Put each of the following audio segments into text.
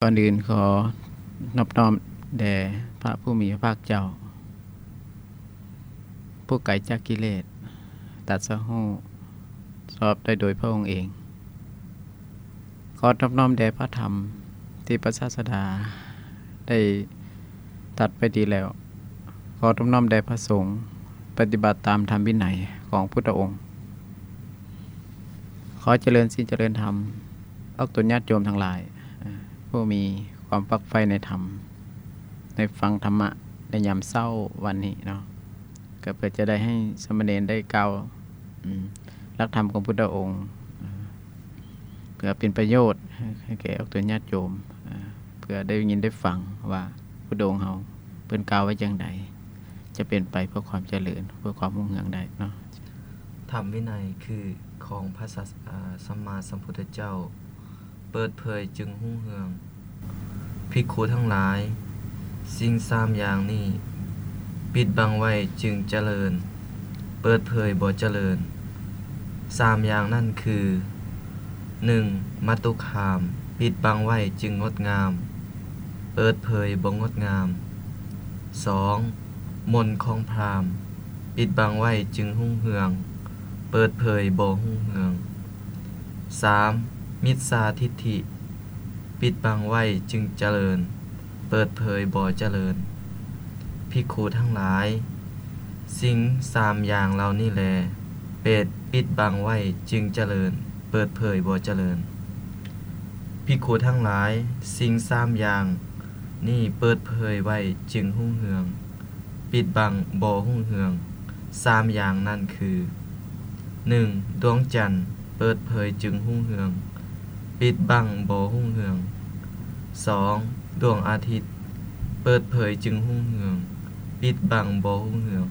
ກ່ອນອື່ນຂໍນອບນ້ອມແດ່ພະຜູ້ມີພະພາກເຈົ້າ ຜູ້ໄກຈາກກິເລດ ຕັດສະຮູ້ຊອບໄດ້ໂດຍພະອົງເອງ. ຂໍນອບນ້ອມແດ່ພະທຳທີ່ພະສາສະດາໄດ້ຕັດໄວ້ດີແລ້ວ. ຂໍນອບນ້ອມແດ່ພະສົງ ປະຕິບັດຕາມທຳວິໄນຂອງພຸດທະອົງ. ຂໍຈະເລີນສິນຈະເລີນທຳ ອອກຕົນຍາດໂຍມທັງຫຼາຍ ຜູ້ມີຄວາມຝັກໃຝ່ໃນທຳ ໃນຟັງທຳມະໃນຍາມເຊົ້າວັນນີ້ເນາະ ກໍເພື່ອຈະໄດ້ໃຫ້ສາມະເນນໄດ້ກ່າວ ອາ ຫຼັກທຳຂອງພຸດທະອົງ ເພື່ອເປັນປະໂຫຍດໃຫ້ແກ່ອອກຕົນຍາດໂຍມ ເພື່ອໄດ້ຍິນໄດ້ຟັງວ່າພຸດທະອົງເຮົາເພິ່ນກ່າວໄວ້ຈັ່ງໃດ ຈະເປັນໄປເພື່ອຄວາມຈະເລີນ ເພື່ອຄວາມຮຸ່ງເຮືອງໄດ້ເນາະ. ທຳວິໄນຄືຂອງພະສາ ອາ ສຳມາສຳພຸດທະເຈົ້າ ເປີດເຜີຍຈຶ່ງຮຸ່ງເຮືອງ. ພິກຂຸທັງຫຼາຍ, ສິ່ງສາມຢ່າງນີ້ ປິດບັງໄວ້ຈຶ່ງຈະເລີນ, ເປີດເຜີຍບໍ່ຈະເລີນ. ສາມຢ່າງນັ້ນຄື ໜຶ່ງ ມະຕຸຄາມ, ປິດບັງໄວ້ຈຶ່ງງົດງາມ, ເປີດເຜີຍບໍ່ງົດງາມ. ສອງ ມົນຂອງພຣາມ, ປິດບັງໄວ້ຈຶ່ງຮຸ່ງເຮືອງ, ເປີດເຜີຍບໍ່ຮຸ່ງເຮືອງ. ສາມ ມິດສາທິດຖິ, ປິດບັງໄວ້ຈຶ່ງຈະເລີນ, ເປີດເຜີຍບໍ່ຈະເລີນ. ພິກຂຸທັງຫຼາຍ, ສິ່ງສາມຢ່າງເຫຼົ່ານີ້ແລ ເປັນ ປິດບັງໄວ້ຈຶ່ງຈະເລີນ, ເປີດເຜີຍບໍ່ຈະເລີນ. ພິກຂຸທັງຫຼາຍ, ສິ່ງສາມຢ່າງນີ້ເປີດເຜີຍໄວ້ຈຶ່ງຮຸ່ງເຮືອງ, ປິດບັງບໍ່ຮຸ່ງເຮືອງ. ສາມຢ່າງນັ້ນຄື ໜຶ່ງ ດວງຈັນ ເປີດເຜີຍຈຶ່ງຮຸ່ງເຮືອງ, ປິດບັງບໍ່ຮຸ່ງເຮືອງ. ສອງ ດວງອາທິດ ເປີດເຜີຍຈຶ່ງຮຸ່ງເຮືອງ, ປິດບັງບໍ່ຮຸ່ງເຮືອງ.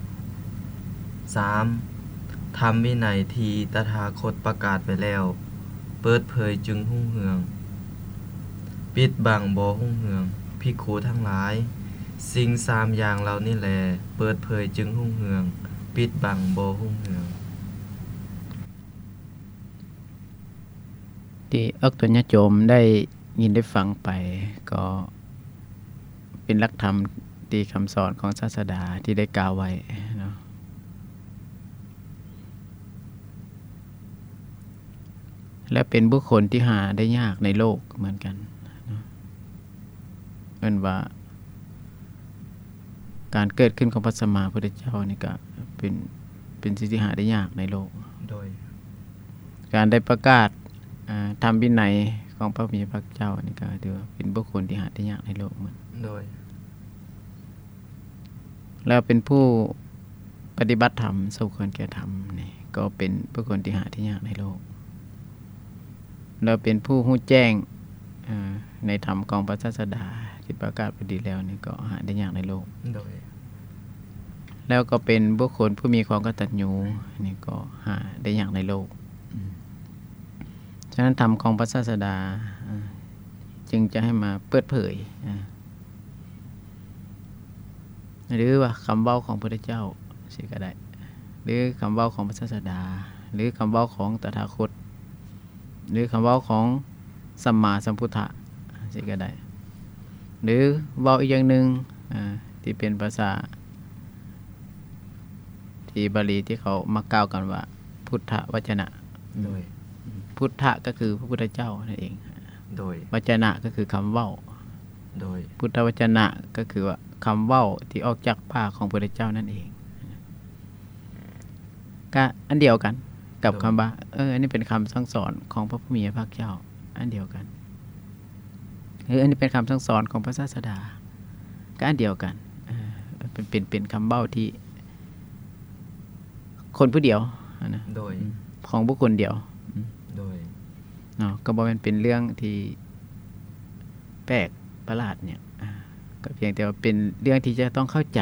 ສາມ ທຳວິໄນທີ່ຕະຖາຄົດປະກາດໄວ້ແລ້ວ ເປີດເຜີຍຈຶ່ງຮຸ່ງເຮືອງ, ປິດບັງບໍ່ຮຸ່ງເຮືອງ. ພິກຂຸທັງຫຼາຍ, ສິ່ງສາມຢ່າງເຫຼົ່ານີ້ແລ ເປີດເຜີຍຈຶ່ງຮຸ່ງເຮືອງ, ປິດບັງບໍ່ຮຸ່ງເຮືອງ. ທີ່ອອກຕົນຍາດໂຍມໄດ້ຍິນໄດ້ຟັງໄປ ກໍເປັນຫຼັກທຳທີ່ຄຳສອນຂອງສາດສະດາທີ່ໄດ້ກ່າວໄວ້ເນາະ ແລະ ເປັນບຸກຄົນທີ່ຫາໄດ້ຍາກໃນໂລກເໝືອນກັນເນາະ. ເອີ້ນວ່າ ການເກີດຂຶ້ນຂອງພະສຳມາພຸດທະເຈົ້ານີ້ກະເປັນ ເປັນສິ່ງທີ່ຫາໄດ້ຍາກໃນໂລກ. ໂດຍ ການໄດ້ປະກາດ ອາ ທຳວິໄນຂອງພະຜູ້ມີພະພາກເຈົ້ານີ້ກະຖືວ່າເປັນບຸກຄົນທີ່ຫາໄດ້ຍາກໃນໂລກ. ໂດຍ ແລ້ວເປັນຜູ້ປະຕິບັດທຳ ສົມຄວນແກ່ທຳນີ້ ກໍເປັນບຸກຄົນທີ່ຫາໄດ້ຍາກໃນໂລກ. ແລ້ວເປັນຜູ້ຮູ້ແຈ້ງ ເອີ ໃນທຳຂອງພະສາສະດາທີ່ປະກາດໄປດີແລ້ວນີ້ ກໍຫາໄດ້ຍາກໃນໂລກ. ໂດຍ ແລ້ວກໍເປັນບຸກຄົນຜູ້ມີຄວາມກະຕັນຍູ ນີ້ກໍຫາໄດ້ຍາກໃນໂລກ. ອາ ສະນັ້ນ ທຳຂອງພະສາສະດາ ອາ ຈຶ່ງຈະໃຫ້ມາເປີດເຜີຍ ອາ ຫຼືວ່າຄຳເວົ້າຂອງພຸດທະເຈົ້າຊີ້ກໍໄດ້ ຫຼືຄຳເວົ້າຂອງພະສາສະດາ ຫຼືຄຳເວົ້າຂອງຕະຖາຄົດ ຫຼືຄຳເວົ້າຂອງສຳມາສຳພຸດທະຊີ້ກໍໄດ້ ຫຼືເວົ້າອີກຢ່າງໜຶ່ງ ອາ ທີ່ເປັນພາສາທີ່ບາລີທີ່ເຂົາມັກກ່າວກັນວ່າ ພຸດທະວັດຈະນະ. ໂດຍ ພຸດທະກໍຄືພະພຸດທະເຈົ້ານັ້ນເອງ. ໂດຍ ວັດຈະນະກໍຄືຄຳເວົ້າ. ໂດຍ ພຸດທະວັດຈະນະກໍຄືວ່າຄຳເວົ້າທີ່ອອກຈາກປາກຂອງພະພຸດທະເຈົ້ານັ້ນເອງ. ກະອັນດຽວກັນກັບຄຳວ່າ ເອີ ອັນນີ້ເປັນຄຳສັ່ງສອນຂອງພະຜູ້ມີພະພາກເຈົ້າ ອັນດຽວກັນ. ເອີ ອັນນີ້ເປັນຄຳສັ່ງສອນຂອງພະສາສະດາ ກະອັນດຽວກັນ. ເອີ ເປັນ ເປັນ ເປັນຄຳເວົ້າທີ່ ຄົນຜູ້ດຽວຫັ້ນນະ. ໂດຍ ອືມ ຂອງບຸກຄົນດຽວ. ອືມ ໂດຍ ເນາະ ກໍບໍ່ແມ່ນເປັນເລື່ອງທີ່ແປກປະຫຼາດຫຍັງ ອາ ກໍພຽງແຕ່ວ່າເປັນເລື່ອງທີ່ຈະຕ້ອງເຂົ້າໃຈ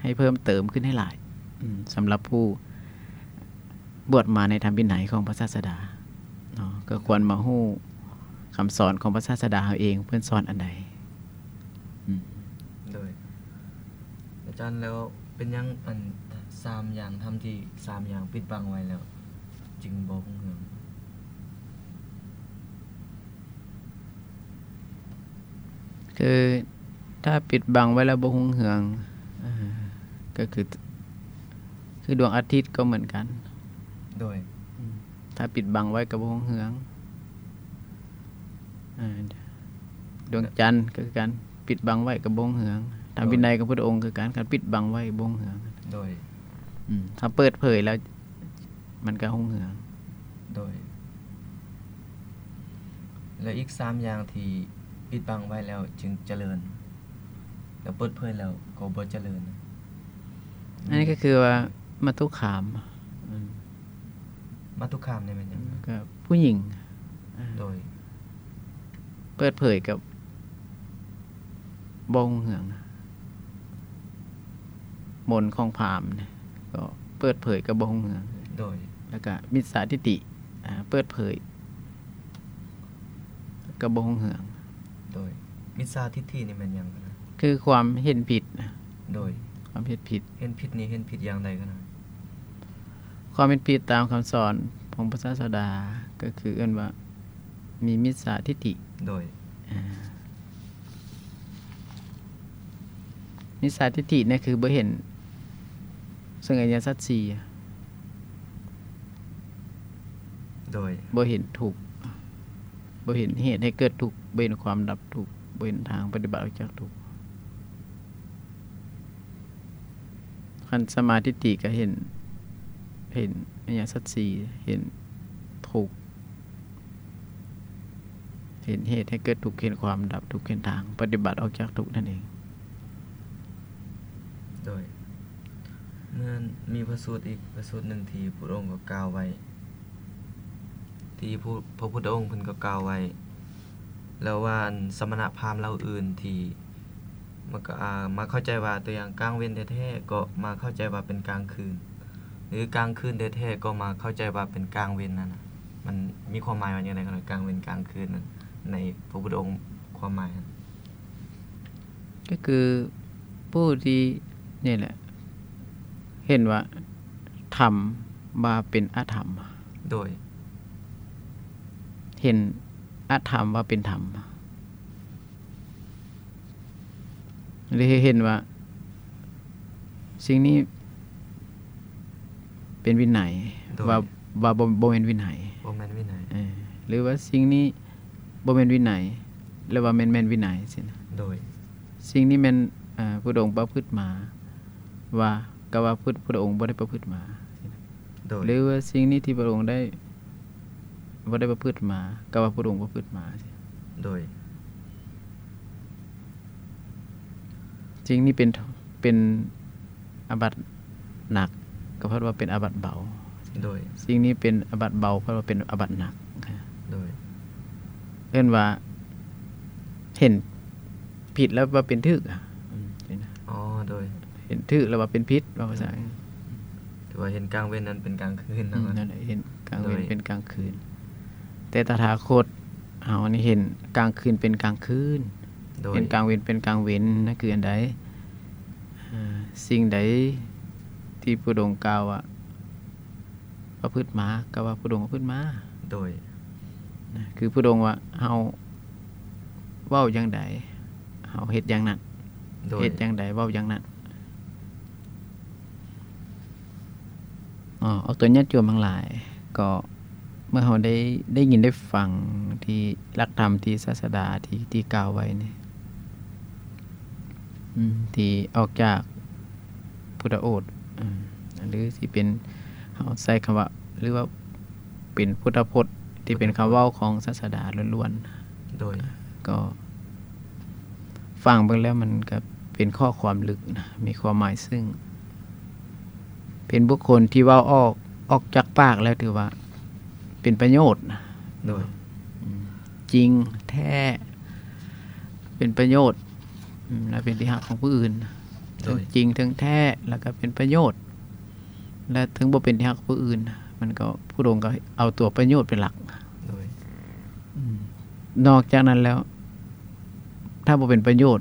ໃຫ້ເພີ່ມເຕີມຂຶ້ນໃຫ້ຫຼາຍ. ອືມ ສຳລັບຜູ້ບວດມາໃນທຳວິໄນຂອງພະສາສະດາເນາະ ກໍຄວນມາຮູ້ຄຳສອນຂອງພະສາສະດາເຮົາເອງ ເພິ່ນສອນອັນໃດ. ອືມ ໂດຍ ອາຈານ ແລ້ວເປັນຫຍັງອັນສາມຢ່າງທຳທີ່ສາມຢ່າງປິດບັງໄວ້ແລ້ວຈຶ່ງບໍ່ຮຸ່ງເຮືອງ? ຄືຖ້າປິດບັງໄວ້ແລ້ວບໍ່ຮຸ່ງເຮືອງ ເອີ ກໍຄື ຄືດວງອາທິດກໍເໝືອນກັນ. ໂດຍ ອືມ ຖ້າປິດບັງໄວ້ກໍບໍ່ຮຸ່ງເຮືອງ. ເອີ ດວງຈັນກໍຄືກັນ ປິດບັງໄວ້ກໍບໍ່ຮຸ່ງເຮືອງ. ທຳ ໂດຍ ວິໄນຂອງພຸດທະອົງຄືກັນ ຄັນປິດບັງໄວ້ບໍ່ຮຸ່ງເຮືອງ. ໂດຍ ອືມ ຖ້າເປີດເຜີຍແລ້ວ ມັນກໍຮຸ່ງເຮືອງ. ໂດຍ ແລະ ອີກສາມຢ່າງທີ່ປິດບັງໄວ້ແລ້ວຈຶ່ງຈະເລີນ ແລ້ວເປີດເຜີຍແລ້ວກໍບໍ່ຈະເລີນ. ອັນນີ້ກໍຄືວ່າ ອືມ ມັດຖຸຄາມ. ອືມ ມັດຕຸຄາມນີ້ແມ່ນຫຍັງ? ກໍຜູ້ຍິງ. ໂດຍ ເປີດເຜີຍກັບບໍ່ຮຸ່ງເຮືອງ ມົນຂອງພາມນີ້ ກໍເປີດເຜີຍກັບບໍ່ຮຸ່ງເຮືອງ. ໂດຍ ແລ້ວກໍມິດສາທິດຖິ ອາ ເປີດເຜີຍກັບບໍ່ຮຸ່ງເຮືອງ. ໂດຍ ມິດສາທິດຖິນີ້ແມ່ນຫຍັງ? ຄືຄວາມເຫັນຜິດ. ໂດຍ ຄວາມເຫັນຜິດ. ເຫັນຜິດນີ້ເຫັນຜິດຢ່າງໃດ? ຄວາມເຫັນຜິດຕາມຄຳສອນຂອງພະສາສະດາ ກໍຄືເອີ້ນວ່າມີມິດສາທິດຖິ. ໂດຍ ອາ ມິດສາທິດຖິນີ້ຄືບໍ່ເຫັນເຊິ່ງອະລິຍະສັດສີ່. ໂດຍ ບໍ່ເຫັນທຸກ ບໍ່ເຫັນເຫດໃຫ້ເກີດທຸກ ບໍ່ເຫັນຄວາມດັບທຸກ ບໍ່ເຫັນທາງປະຕິບັດອອກຈາກທຸກ. ຄັນສຳມາທິດຖິກໍເຫັນ ເຫັນອະລິຍະສັດສີ່ ເຫັນທຸກ ເຫັນເຫດໃຫ້ເກີດທຸກ ເຫັນຄວາມດັບທຸກ ເຫັນທາງປະຕິບັດອອກຈາກທຸກນັ້ນເອງ. ໂດຍ ເມື່ອມີພະສູດອີກພະສູດໜຶ່ງທີ່ພຸດທະອົງກໍກ່າວໄວ້ ທີ່ ພະພຸດທະອົງເພິ່ນກໍກ່າວໄວ້ແລ້ວວ່າ ອັນສະມະນະພາມເຫຼົ່າອື່ນທີ່ ມັນກໍ ອາ ມາເຂົ້າໃຈວ່າ ຕົວຢ່າງກາງເວັນແທ້ໆ ກໍມາເຂົ້າໃຈວ່າເປັນກາງຄືນ ຫຼືກາງຄືນແທ້ໆ ກໍມາເຂົ້າໃຈວ່າເປັນກາງເວັນນັ້ນນະ ມັນມີຄວາມໝາຍວ່າຈັ່ງໃດ? ກາງເວັນກາງຄືນນັ້ນ ໃນພະພຸດທະອົງຄວາມໝາຍຫັ້ນ ກໍຄືຜູ້ທີ່ ນີ້ແຫຼະ ເຫັນວ່າທຳວ່າເປັນອະທຳ. ໂດຍ ເຫັນອະທຳວ່າເປັນທຳ. ຫຼືເຫັນວ່າສິ່ງນີ້ເປັນວິໄນ ໂດຍ ວ່າ ວ່າບໍ່ ບໍ່ແມ່ນວິໄນ ບໍ່ແມ່ນວິໄນ ເອີ ຫຼືວ່າສິ່ງນີ້ບໍ່ແມ່ນວິໄນ ຫຼືວ່າແມ່ນ ແມ່ນວິໄນຊີ້ນະ. ໂດຍ ສິ່ງນີ້ແມ່ນ ເອີ ພຸດທະອົງປະພຶດມາ ວ່າ ກໍວ່າພຸດ ພຸດທະອົງບໍ່ໄດ້ປະພຶດມາ. ໂດຍ ຫຼືວ່າສິ່ງນີ້ທີ່ພະອົງໄດ້ ບໍ່ໄດ້ປະພຶດມາ ກໍວ່າພະອົງປະພຶດມາ. ໂດຍ ສິ່ງນີ້ເປັນ ເປັນອາບັດໜັກ ກໍເພິ່ນວ່າເປັນອາບັດເບົາ. ໂດຍ ສິ່ງນີ້ເປັນອາບັດເບົາ ເພິ່ນວ່າເປັນອາບັດໜັກ. ໂດຍ ເອີ້ນວ່າເຫັນຜິດແລ້ວວ່າເປັນຖືກ. ອືມ ອໍ ໂດຍ ເຫັນຖືກແລ້ວວ່າເປັນຜິດ ເວົ້າພາສາ ໂດຍ ຖືວ່າເຫັນກາງເວັນນັ້ນເປັນກາງຄືນເນາະ. ອືມ ນັ້ນແຫຼະ ເຫັນກາງເວັນ ໂດຍ ເປັນກາງຄືນ ແຕ່ຕະຖາຄົດເຮົານີ້ເຫັນກາງຄືນເປັນກາງຄືນ. ໂດຍ ເຫັນກາງເວັນເປັນກາງເວັນ ນັ້ນຄືອັນໃດ? ເອີ ສິ່ງໃດທີ່ພະອົງກ່າວວ່າປະພຶດມາ ກໍວ່າພະອົງປະພຶດມາ. ໂດຍ ນະ ຄືພະອົງວ່າເຮົາເວົ້າຢ່າງໃດ ເຮົາເຮັດຢ່າງນັ້ນ. ໂດຍ ເຮັດຢ່າງໃດເວົ້າຢ່າງນັ້ນ. ອໍ ອອກຕົນຍາດໂຍມທັງຫຼາຍ ກໍເມື່ອເຮົາໄດ້ ໄດ້ຍິນໄດ້ຟັງທີ່ຫຼັກທຳທີ່ສາສະດາທີ່ ທີ່ກ່າວໄວ້ນີ້ ອືມ ທີ່ອອກຈາກພຸດທະໂອດ ອືມ ຫຼືຊິເປັນ ເຮົາໃຊ້ຄຳວ່າ ຫຼືວ່າເປັນພຸດທະພົດ ທີ່ເປັນຄຳເວົ້າຂອງສາສະດາລ້ວນໆ. ໂດຍ ກໍຟັງເບິ່ງແລ້ວມັນກໍເປັນຂໍ້ຄວາມເລິກນະ ມີຄວາມໝາຍເຊິ່ງ ເປັນບຸກຄົນທີ່ເວົ້າອອກ ອອກຈາກປາກແລ້ວຖືວ່າເປັນປະໂຫຍດນະ. ໂດຍ ອືມ ຈິງແທ້ ເປັນປະໂຫຍດ ອືມ ແລະເປັນທີ່ຮັກຂອງຜູ້ອື່ນ. ໂດຍ ເຖິງຈິງເຖິງແທ້ ແລ້ວກໍເປັນປະໂຫຍດ ແລະເຖິງບໍ່ເປັນທີ່ຮັກຂອງຜູ້ອື່ນ ມັນກໍ ພະອົງກໍເອົາຕົວປະໂຫຍດເປັນຫຼັກ. ໂດຍ ອືມ ນອກຈາກນັ້ນແລ້ວ ຖ້າບໍ່ເປັນປະໂຫຍດ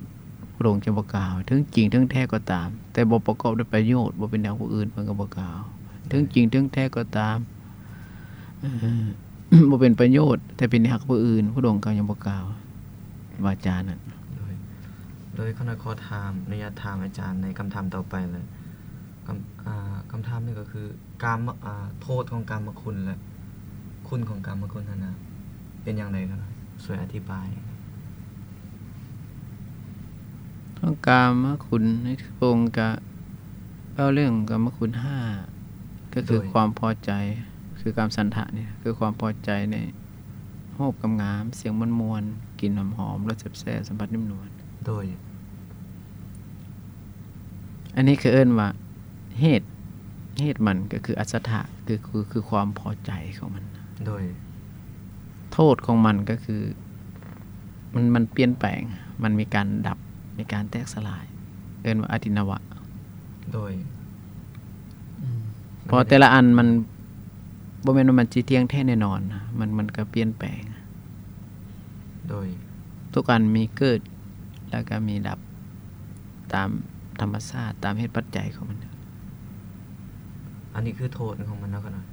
ພະອົງຈະບໍ່ກ່າວ ເຖິງຈິງເຖິງແທ້ກໍຕາມ ແຕ່ບໍ່ປະກອບດ້ວຍປະໂຫຍດ ບໍ່ເປັນແນວຜູ້ອື່ນ ເພິ່ນກໍບໍ່ກ່າວ. ໂດຍ ເຖິງຈິງເຖິງແທ້ກໍຕາມ ເອີ ບໍ່ເປັນປະໂຫຍດ ແຕ່ເປັນທີ່ຮັກຜູ້ອື່ນ ພະອົງກໍຍັງບໍ່ກ່າວ ວາຈານັ້ນ. ໂດຍ ໂດຍ ຂ້ານ້ອຍຂໍຖາມ ອະນຸຍາດຖາມອາຈານໃນຄຳຖາມຕໍ່ໄປເລີຍ. ຄຳ ອ່າ ຄຳຖາມນີ້ກໍຄື ກາມ ອ່າ ໂທດຂອງກາມະຄຸນ ແລະ ຄຸນຂອງກາມະຄຸນຫັ້ນນະ ເປັນຢ່າງໃດ? ຂ້ານ້ອຍຊ່ວຍອະທິບາຍ. ຂອງກາມະຄຸນໃນພະອົງກະເວົ້າເລື່ອງກາມະຄຸນຫ້າ ກໍຄື ໂດຍ ຄວາມພໍໃຈ ຄືກາມສັນທະນີ້ ຄືຄວາມພໍໃຈໃນຮູບງາມໆ ສຽງມ່ວນໆ ກິ່ນຫອມໆ ລົດແຊບໆ ສຳຜັດນຸ້ມນວນ. ໂດຍ ອັນນີ້ຄືເອີ້ນວ່າເຫດ ເຫດມັນກໍຄືອັດສະຖະ ຄື ຄື ຄືຄວາມພໍໃຈຂອງມັນ. ໂດຍ ໂທດຂອງມັນກໍຄື ມັນ ມັນປ່ຽນແປງ ມັນມີການດັບ ມີການແຕກສະຫຼາຍ ເອີ້ນວ່າອະຕິນະວະ. ໂດຍ ອືມ ເພາະແຕ່ລະອັນມັນບໍ່ແມ່ນວ່າມັນຊິທ່ຽງແທ້ແນ່ນອນນະ ມັນ ມັນກໍປ່ຽນແປງ. ໂດຍ ທຸກອັນມີເກີດ ແລ້ວກໍມີດັບຕາມທຳມະຊາດ ຕາມເຫດປັດໄຈຂອງມັນ. ອັນນີ້ຄືໂທດຂອງມັນເນາະ ຂ້ານ້ອຍ.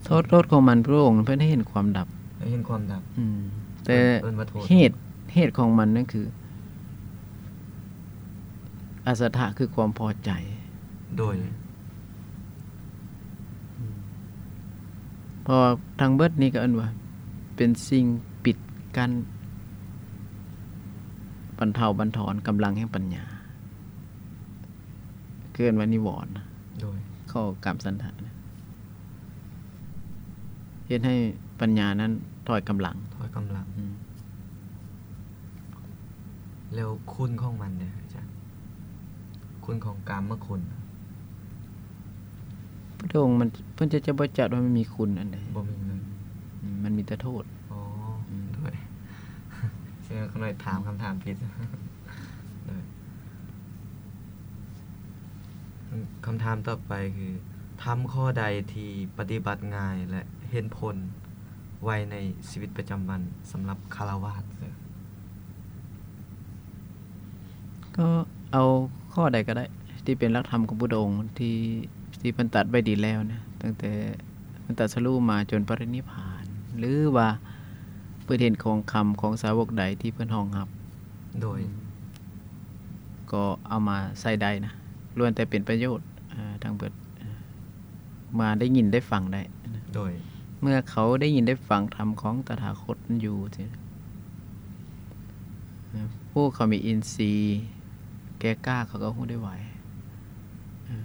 ໂທດ ໂທດຂອງມັນ ພະອົງເພິ່ນໃຫ້ເຫັນຄວາມດັບ ໃຫ້ເຫັນຄວາມດັບ. ອືມ ແຕ່ ເອີ້ນ ເອີ້ນວ່າໂທດ ເຫດ ເຫດຂອງມັນນັ້ນຄື ອັດສະຖະຄືຄວາມພໍໃຈ. ໂດຍ ອືມ ເພາະວ່າທັງເບິດນີ້ກໍເອີ້ນວ່າເປັນສິ່ງປິດກັ້ນ ບັນເທົາບັນທອນກຳລັງແຫ່ງປັນຍາ ເອີ້ນວ່ານິວອນນະ. ໂດຍ ຂໍ້ກາມສັນທະນະ ເຮັດໃຫ້ປັນຍານັ້ນຖອຍກຳລັງ ຖອຍກຳລັງ. ອືມ ແລ້ວຄຸນຂອງມັນເດ ອາຈານ? ຄຸນຂອງກາມະຄຸນ ພະອົງມັນ ເພິ່ນຈະ ຈະບໍ່ຈັດວ່າມັນມີຄຸນອັນໃດ ບໍ່ມີເລີຍ. ອືມ ມັນມີແຕ່ໂທດ. ອໍ ອືມ ໂດຍ ເຊິ່ງຂ້ານ້ອຍຖາມຄຳຖາມຜິດ. ໂດຍ ຄຳຖາມຕໍ່ໄປຄື ທຳຂໍ້ໃດທີ່ປະຕິບັດງ່າຍ ແລະ ເຫັນຜົນໄວໃນຊີວິດປະຈຳວັນສຳລັບຄາລະວາດ? ກໍເອົາຂໍ້ໃດກໍໄດ້ທີ່ເປັນຫຼັກທຳຂອງພຸດທະອົງທີ່ ທີ່ເພິ່ນຕັດໄວ້ດີແລ້ວນະ ຕັ້ງແຕ່ເພິ່ນຕັດສະຮູ້ມາຈົນປະລິນິບພານ ຫຼືວ່າເພິ່ນເຫັນຂອງຄຳຂອງສາວົກໃດທີ່ເພິ່ນຮອງຮັບ. ໂດຍ ອືມ ກໍເອົາມາໃຊ້ໄດ້ນະ ລ້ວນແຕ່ເປັນປະໂຫຍດ ເອີ ທັງເບິດ ເອີ ມາໄດ້ຍິນໄດ້ຟັງໄດ້ນະ. ໂດຍ ເມື່ອເຂົາໄດ້ຍິນໄດ້ຟັງທຳຂອງຕະຖາຄົດຢູ່ຊີ້ນະ ຜູ້ເຂົາມີອິນຊີແກ່ກ້າ ເຂົາກໍຮູ້ໄດ້ໄວ ເອີ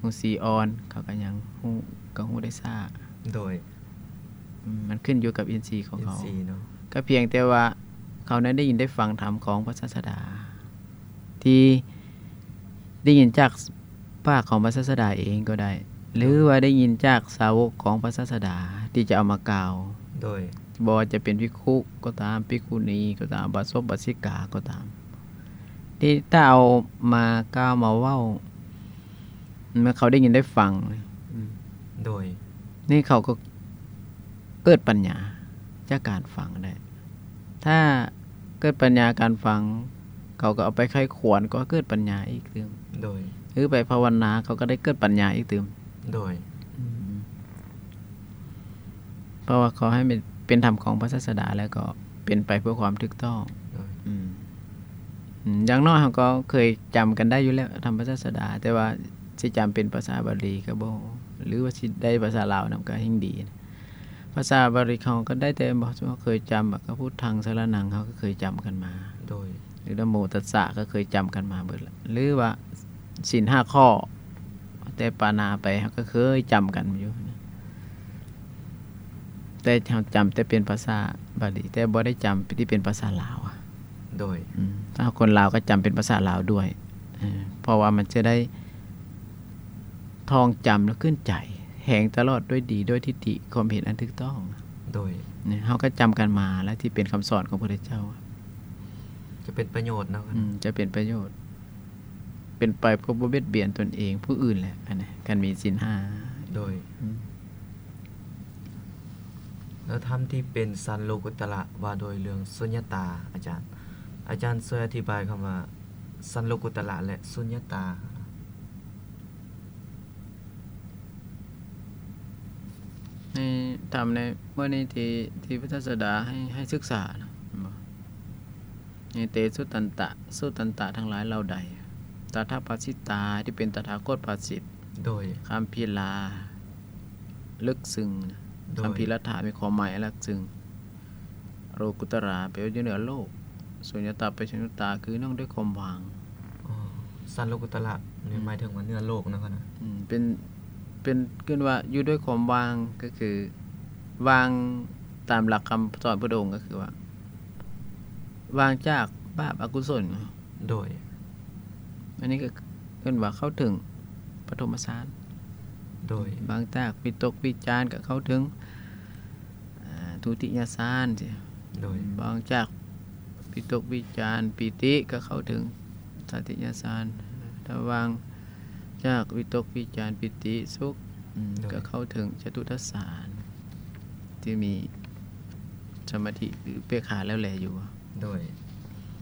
ຮູ້ສີອ່ອນ ເຂົາກໍຍັງຮູ້ ກໍຮູ້ໄດ້ຊ້າ. ໂດຍ ອືມ ມັນຂຶ້ນຢູ່ກັບອິນຊີຂອງເຂົາ ອິນຊີເນາະ ກໍພຽງແຕ່ວ່າເຂົານັ້ນໄດ້ຍິນໄດ້ຟັງທຳຂອງພະສາສະດາ ທີ່ໄດ້ຍິນຈາກປາກຂອງພະສາສະດາເອງກໍໄດ້ ຫຼືວ່າໄດ້ຍິນຈາກສາວົກຂອງພະສາສະດາທີ່ຈະເອົາມາກ່າວ. ໂດຍ ບໍ່ວ່າຈະເປັນພິກຂຸກໍຕາມ ພິກຂຸນີກໍຕາມ ອຸບາສົກ ອຸບາສິກາກໍຕາມ ທີ່ຖ້າເອົາມາກ່າວມາເວົ້າ ເມື່ອເຂົາໄດ້ຍິນໄດ້ຟັງ ອືມ ໂດຍ ນີ້ເຂົາກໍເກີດປັນຍາຈາກການຟັງໄດ້. ຖ້າເກີດປັນຍາການຟັງ ເຂົາກໍເອົາໄປໃຄ່ຄວນ ກໍເກີດປັນຍາອີກຕື່ມ. ໂດຍ ຫຼືໄປພາວະນາ ເຂົາກໍໄດ້ເກີດປັນຍາອີກຕື່ມ. ໂດຍ ອືມ ເພາະວ່າເຂົາໃຫ້ເປັນ ເປັນທຳຂອງພະສາສະດາ ແລ້ວກໍເປັນໄປເພື່ອຄວາມຖືກຕ້ອງ. ໂດຍ ອືມ ອືມ ຢ່າງໜ້ອຍເຮົາກໍເຄີຍຈຳກັນໄດ້ຢູ່ແລ້ວ ທຳພະສາສະດາ ແຕ່ວ່າຊິຈຳເປັນພາສາບາລີກໍບໍ່ ຫຼືວ່າຊິໄດ້ພາສາລາວນຳກໍແຮ່ງດີ. ພາສາບາລີເຮົາກໍໄດ້ແຕ່ ບໍ່ ເຮົາເຄີຍຈຳ ກໍພຸດທັງສະຣະນັງ ເຮົາກໍເຄີຍຈຳກັນມາ. ໂດຍ ຫຼືນະໂມຕັດສະ ກໍເຄີຍຈຳກັນມາເບິດລະ ຫຼືວ່າສິນຫ້າຂໍ້ ແຕ່ປານາໄປ ເຮົາກໍເຄີຍຈຳກັນຢູ່. ແຕ່ເຮົາຈຳແຕ່ເປັນພາສາບາລີ ແຕ່ບໍ່ໄດ້ຈຳທີ່ເປັນພາສາລາວ. ໂດຍ ອືມ ຖ້າຄົນລາວກໍຈຳເປັນພາສາລາວດ້ວຍ ເອີ ເພາະວ່າມັນຈະໄດ້ທ່ອງຈຳແລ້ວຂຶ້ນໃຈ ແຮງຕະຫຼອດດ້ວຍດີ ດ້ວຍທິດຖິ ຄວາມເຫັນອັນຖືກຕ້ອງ. ໂດຍ ນີ້ເຮົາກໍຈຳກັນມາແລ້ວ ທີ່ເປັນຄຳສອນຂອງພະເຈົ້າ ຈະເປັນປະໂຫຍດເນາະ. ອືມ ຈະເປັນປະໂຫຍດ ເປັນໄປເພື່ອບໍ່ບຽດບຽນຕົນເອງ ຜູ້ອື່ນແຫຼະ ອັນນີ້ ຄັນມີສິນຫ້າ. ໂດຍ ອືມ ແລ້ວທຳທີ່ເປັນຊັ້ນໂລກຸດຕະລະ ວ່າໂດຍເລື່ອງສຸນຍະຕາ ອາຈານ ອາຈານຊ່ວຍອະທິບາຍຄຳວ່າຊັ້ນໂລກຸດຕະລະ ແລະ ສຸນຍະຕາ. ໃນທຳໃນມື້ນີ້ທີ່ ທີ່ພະສາສະດາໃຫ້ ໃຫ້ສຶກສານະ ແມ່ນບໍ່? ເຕສຸຕັນຕະ ສຸຕັນຕະທັງຫຼາຍເຫຼົ່າໃດ ຕະຖາພາສິຕາ ທີ່ເປັນຕະຖາຄົດພາສິດ ໂດຍ ຄຳພີລາ ເລິກເຊິ່ງ ໂດຍ ຄຳພີລະຖາ ມີຄວາມໝາຍເລິກເຊິ່ງ ໂລກຸດຕະລາ ແປວ່າຢູ່ເໜືອໂລກ ສຸນຍະຕາ ແປສຸນຍະຕາ ຄືເນື່ອງດ້ວຍຄວາມວ່າງ. ອໍ ຊັ້ນໂລກຸດຕະລະນີ້ ອືມ ໝາຍເຖິງວ່າເໜືອໂລກນະ ອືມ ເປັນ ເປັນ ເອີ້ນວ່າຢູ່ດ້ວຍຄວາມວ່າງ ກໍຄືວ່າງຕາມຫຼັກຄຳສອນພຸດທະອົງ ກໍຄືວ່າ ວ່າງຈາກບາບອະກຸສົນ. ໂດຍ ອັນນີ້ກໍເອີ້ນວ່າເຂົ້າເຖິງປະຖົມມະຊານ. ໂດຍ ວ່າງຈາກວິຕົກວິຈານກໍເຂົ້າເຖິງ ອາ ທຸຕິຍະຊານ. ໂດຍ ວ່າງຈາກວິຕົກວິຈານ ປີຕິ ກໍເຂົ້າເຖິງຕາຕິຍະຊານ. ຖ້າວ່າງຈາກວິຕົກວິຈານ ປີຕິ ສຸກ ອືມ ໂດຍ ກໍເຂົ້າເຖິງຈະຕຸຕະສານ ທີ່ມີສະມາທິ ຫຼື ເປກຂາແລ້ວແລຢູ່. ໂດຍ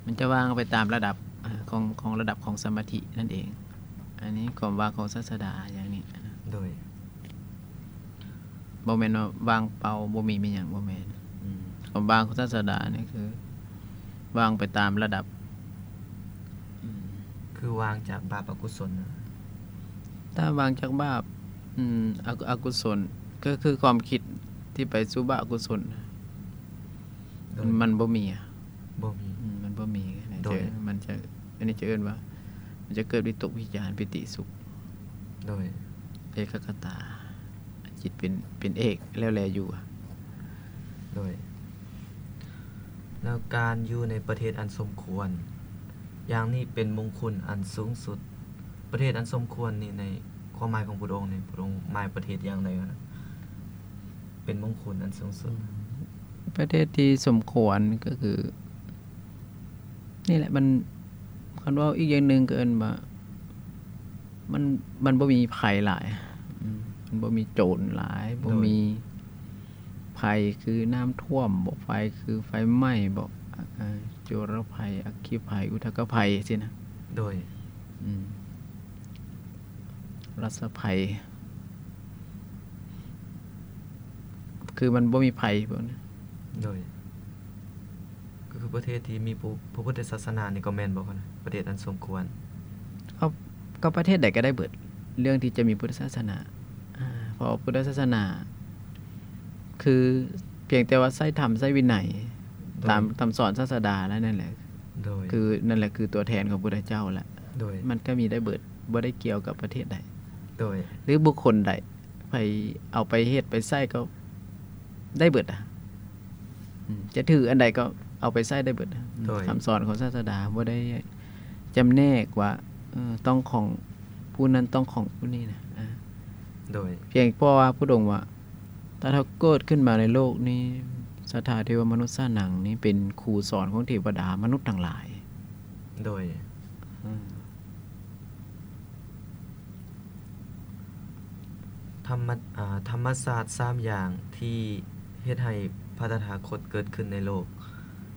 ມັນຈະວ່າງໄປຕາມລະດັບ ອາ ຂອງ ຂອງລະດັບຂອງສະມາທິນັ້ນເອງ. ອັນນີ້ຄວາມວ່າງຂອງສາດສະດາຢ່າງນີ້. ໂດຍ ບໍ່ແມ່ນວ່າວ່າງເປົ່າ ບໍ່ມີມີຫຍັງ ບໍ່ແມ່ນ. ອືມ ຄວາມວ່າງຂອງສາດສະດານີ້ຄືວ່າງໄປຕາມລະດັບ. ອືມ ຄືວ່າງຈາກບາບອະກຸສົນ. ຖ້າວ່າງຈາກບາບ ອືມ ອະ ອະກຸສົນ ກໍຄືຄວາມຄິດທີ່ໄປສູ່ບາບອະກຸສົນ. ໂດຍ ມັນ ມັນບໍ່ມີອະ ບໍ່ມີ ອືມ ມັນບໍ່ມີ. ໂດຍ ມັນຈະ ອັນນີ້ຈະເອີ້ນວ່າ ມັນຈະເກີດວິຕົກວິຈານ ປີຕິ ສຸກ. ໂດຍ ເອກະກະຕາ ຈິດເປັນ ເປັນເອກແລ້ວແລຢູ່. ໂດຍ ແລ້ວການຢູ່ໃນປະເທດອັນສົມຄວນຢ່າງນີ້ເປັນມົງຄຸນອັນສູງສຸດ. ປະເທດອັນສົມຄວນນີ້ ໃນຄວາມໝາຍຂອງພຸດທະອົງນີ້ ພຸດທະອົງໝາຍປະເທດຢ່າງໃດ? ເປັນມົງຄຸນອັນສູງສຸດ. ອືມ ປະເທດທີ່ສົມຄວນກໍຄື ນີ້ແຫຼະ ມັນ ຄັນເວົ້າອີກຢ່າງໜຶ່ງກໍເອີ້ນວ່າ ມັນ ມັນບໍ່ມີໄພຫຼາຍ. ອືມ ມັນບໍ່ມີໂຈນຫຼາຍ ໂດຍ ບໍ່ມີໄພຄືນ້ຳຖ້ວມບໍ ໄພຄືໄຟໄໝ້ບໍ ອາ ອາ ຈຸລະໄພ ອັກຄີໄພ ອຸທະກະໄພຊີ້ນະ. ໂດຍ ອືມ ລັດສະໄພ ຄືມັນບໍ່ມີໄພພວກນີ້. ໂດຍ ກໍຄືປະເທດທີ່ມີພະ ພະພຸດທະສາສະໜານີ້ກໍແມ່ນບໍ່ຄະນະ? ປະເທດອັນສົມຄວນ. ເອົາ ກໍປະເທດໃດກໍໄດ້ເບິດ ເລື່ອງທີ່ຈະມີພຸດທະສາສະໜາ. ອາ ເພາະວ່າພຸດທະສາສະໜາ ຄືພຽງແຕ່ວ່າໃຊ້ທຳ ໃຊ້ວິໄນ ໂດຍ ຕາມຄຳສອນສາດສະດາແລ້ວນັ້ນແຫຼະ. ໂດຍ ຄື ນັ້ນແຫຼະຄືຕົວແທນຂອງພຸດທະເຈົ້າແຫຼະ. ໂດຍ ມັນກໍມີໄດ້ເບິດ ບໍ່ໄດ້ກ່ຽວກັບປະເທດໃດ ໂດຍ ຫຼືບຸກຄົນໃດ ໃຜເອົາໄປເຮັດໄປໃຊ້ກໍໄດ້ເບິດອະ. ອືມ ຈະຖືອັນໃດກໍເອົາໄປໃຊ້ໄດ້ເບິດ. ໂດຍ ຄຳສອນຂອງສາດສະດາບໍ່ໄດ້ຈຳແນກວ່າ ເອີ ຕ້ອງຂອງຜູ້ນັ້ນ ຕ້ອງຂອງຜູ້ນີ້ນະ. ອາ ໂດຍ ພຽງເພາະວ່າພຸດທະອົງວ່າ ຕະຖາຄົດເກີດຂຶ້ນມາໃນໂລກນີ້ ສັດທາເທວະມະນຸດສານັງນີ້ເປັນຄູສອນຂອງເທວະດາມະນຸດທັງຫຼາຍ. ໂດຍ ອືມ ທຳມະ ອາ ທຳມະຊາດສາມຢ່າງທີ່ເຮັດໃຫ້ພະຕະຖາຄົດເກີດຂຶ້ນໃນໂລກ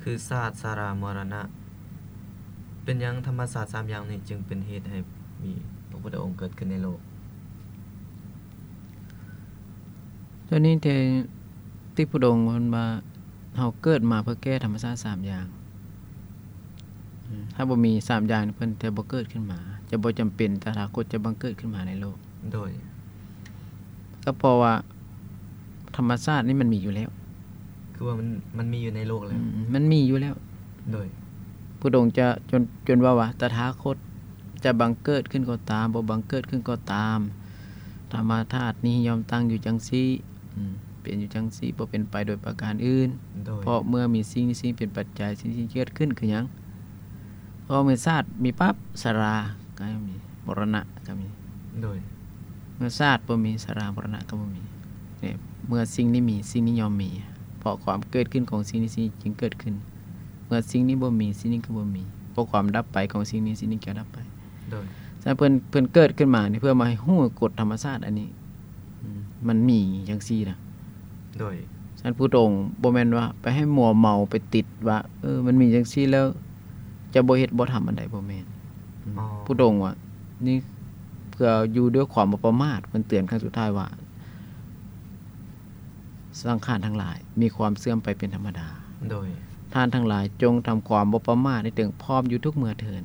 ຄືຊາດ ຊະລາ ມໍລະນະ. ເປັນຫຍັງທຳມະຊາດສາມຢ່າງນີ້ຈຶ່ງເປັນເຫດໃຫ້ມີພະພຸດທະອົງເກີດຂຶ້ນໃນໂລກ? ຕົວນີ້ທີ່ ທີ່ພຸດທະອົງເພິ່ນວ່າ ເຮົາເກີດມາເພື່ອແກ້ທຳມະຊາດສາມຢ່າງ. ອືມ ຖ້າບໍ່ມີສາມຢ່າງນີ້ ເພິ່ນຈະບໍ່ເກີດຂຶ້ນມາ ຈະບໍ່ຈຳເປັນຕະຖາຄົດຈະບັງເກີດຂຶ້ນມາໃນໂລກ. ໂດຍ ກໍເພາະວ່າທຳມະຊາດນີ້ມັນມີຢູ່ແລ້ວ. ຄືວ່າມັນ ມັນມີຢູ່ໃນໂລກແລ້ວ. ອືມ ມັນມີຢູ່ແລ້ວ. ໂດຍ ພຸດທະອົງຈະ ຈົນ ຈົນເວົ້າວ່າ ຕະຖາຄົດຈະບັງເກີດຂຶ້ນກໍຕາມ ບໍ່ບັງເກີດຂຶ້ນກໍຕາມ ທຳມະທາດນີ້ຍ່ອມຕັ້ງຢູ່ຈັ່ງຊີ້ ອືມ ເປັນຢູ່ຈັ່ງຊີ້ ບໍ່ເປັນໄປໂດຍປະການອື່ນ. ໂດຍ ເພາະເມື່ອມີສິ່ງນີ້ ສິ່ງເປັນປັດໄຈ ສິ່ງນີ້ເກີດຂຶ້ນ ຄືຫຍັງ? ເພາະເມື່ອຊາດມີປັບ ຊະລາກໍມີ ມໍລະນະກໍມີ. ໂດຍ ເມື່ອຊາດບໍ່ມີ ຊະລາ ມໍລະນະກໍບໍ່ມີ. ນີ້ ເມື່ອສິ່ງນີ້ມີ ສິ່ງນີ້ຍ່ອມມີ ເພາະຄວາມເກີດຂຶ້ນຂອງສິ່ງນີ້ ສິ່ງນີ້ຈຶ່ງເກີດຂຶ້ນ. ເມື່ອສິ່ງນີ້ບໍ່ມີ ສິ່ງນີ້ກໍບໍ່ມີ ເພາະຄວາມດັບໄປຂອງສິ່ງນີ້ ສິ່ງນີ້ກໍດັບໄປ. ໂດຍ ສະນັ້ນເພິ່ນ ເພິ່ນເກີດຂຶ້ນມານີ້ ເພື່ອມາໃຫ້ຮູ້ກົດທຳມະຊາດອັນນີ້ ອືມ ມັນມີຈັ່ງຊີ້ນະ. ໂດຍ ສະນັ້ນພຸດທະອົງບໍ່ແມ່ນວ່າໄປໃຫ້ມົວເມົາ ໄປຕິດວ່າ ເອີ ມັນມີຈັ່ງຊີ້ແລ້ວ ຈະບໍ່ເຮັດບໍ່ທຳອັນໃດ ບໍ່ແມ່ນ. ອໍ ພຸດທະອົງວ່າ ນີ້ເພື່ອຢູ່ດ້ວຍຄວາມບໍ່ປະໝາດ ເພິ່ນເຕືອນຄັ້ງສຸດທ້າຍວ່າ ສັງຂານທັງຫຼາຍມີຄວາມເສື່ອມໄປເປັນທຳມະດາ. ໂດຍ ທ່ານທັງຫຼາຍຈົ່ງທຳຄວາມບໍ່ປະໝາດໃຫ້ເຖິງພ້ອມຢູ່ທຸກເມື່ອເທີ້ນ.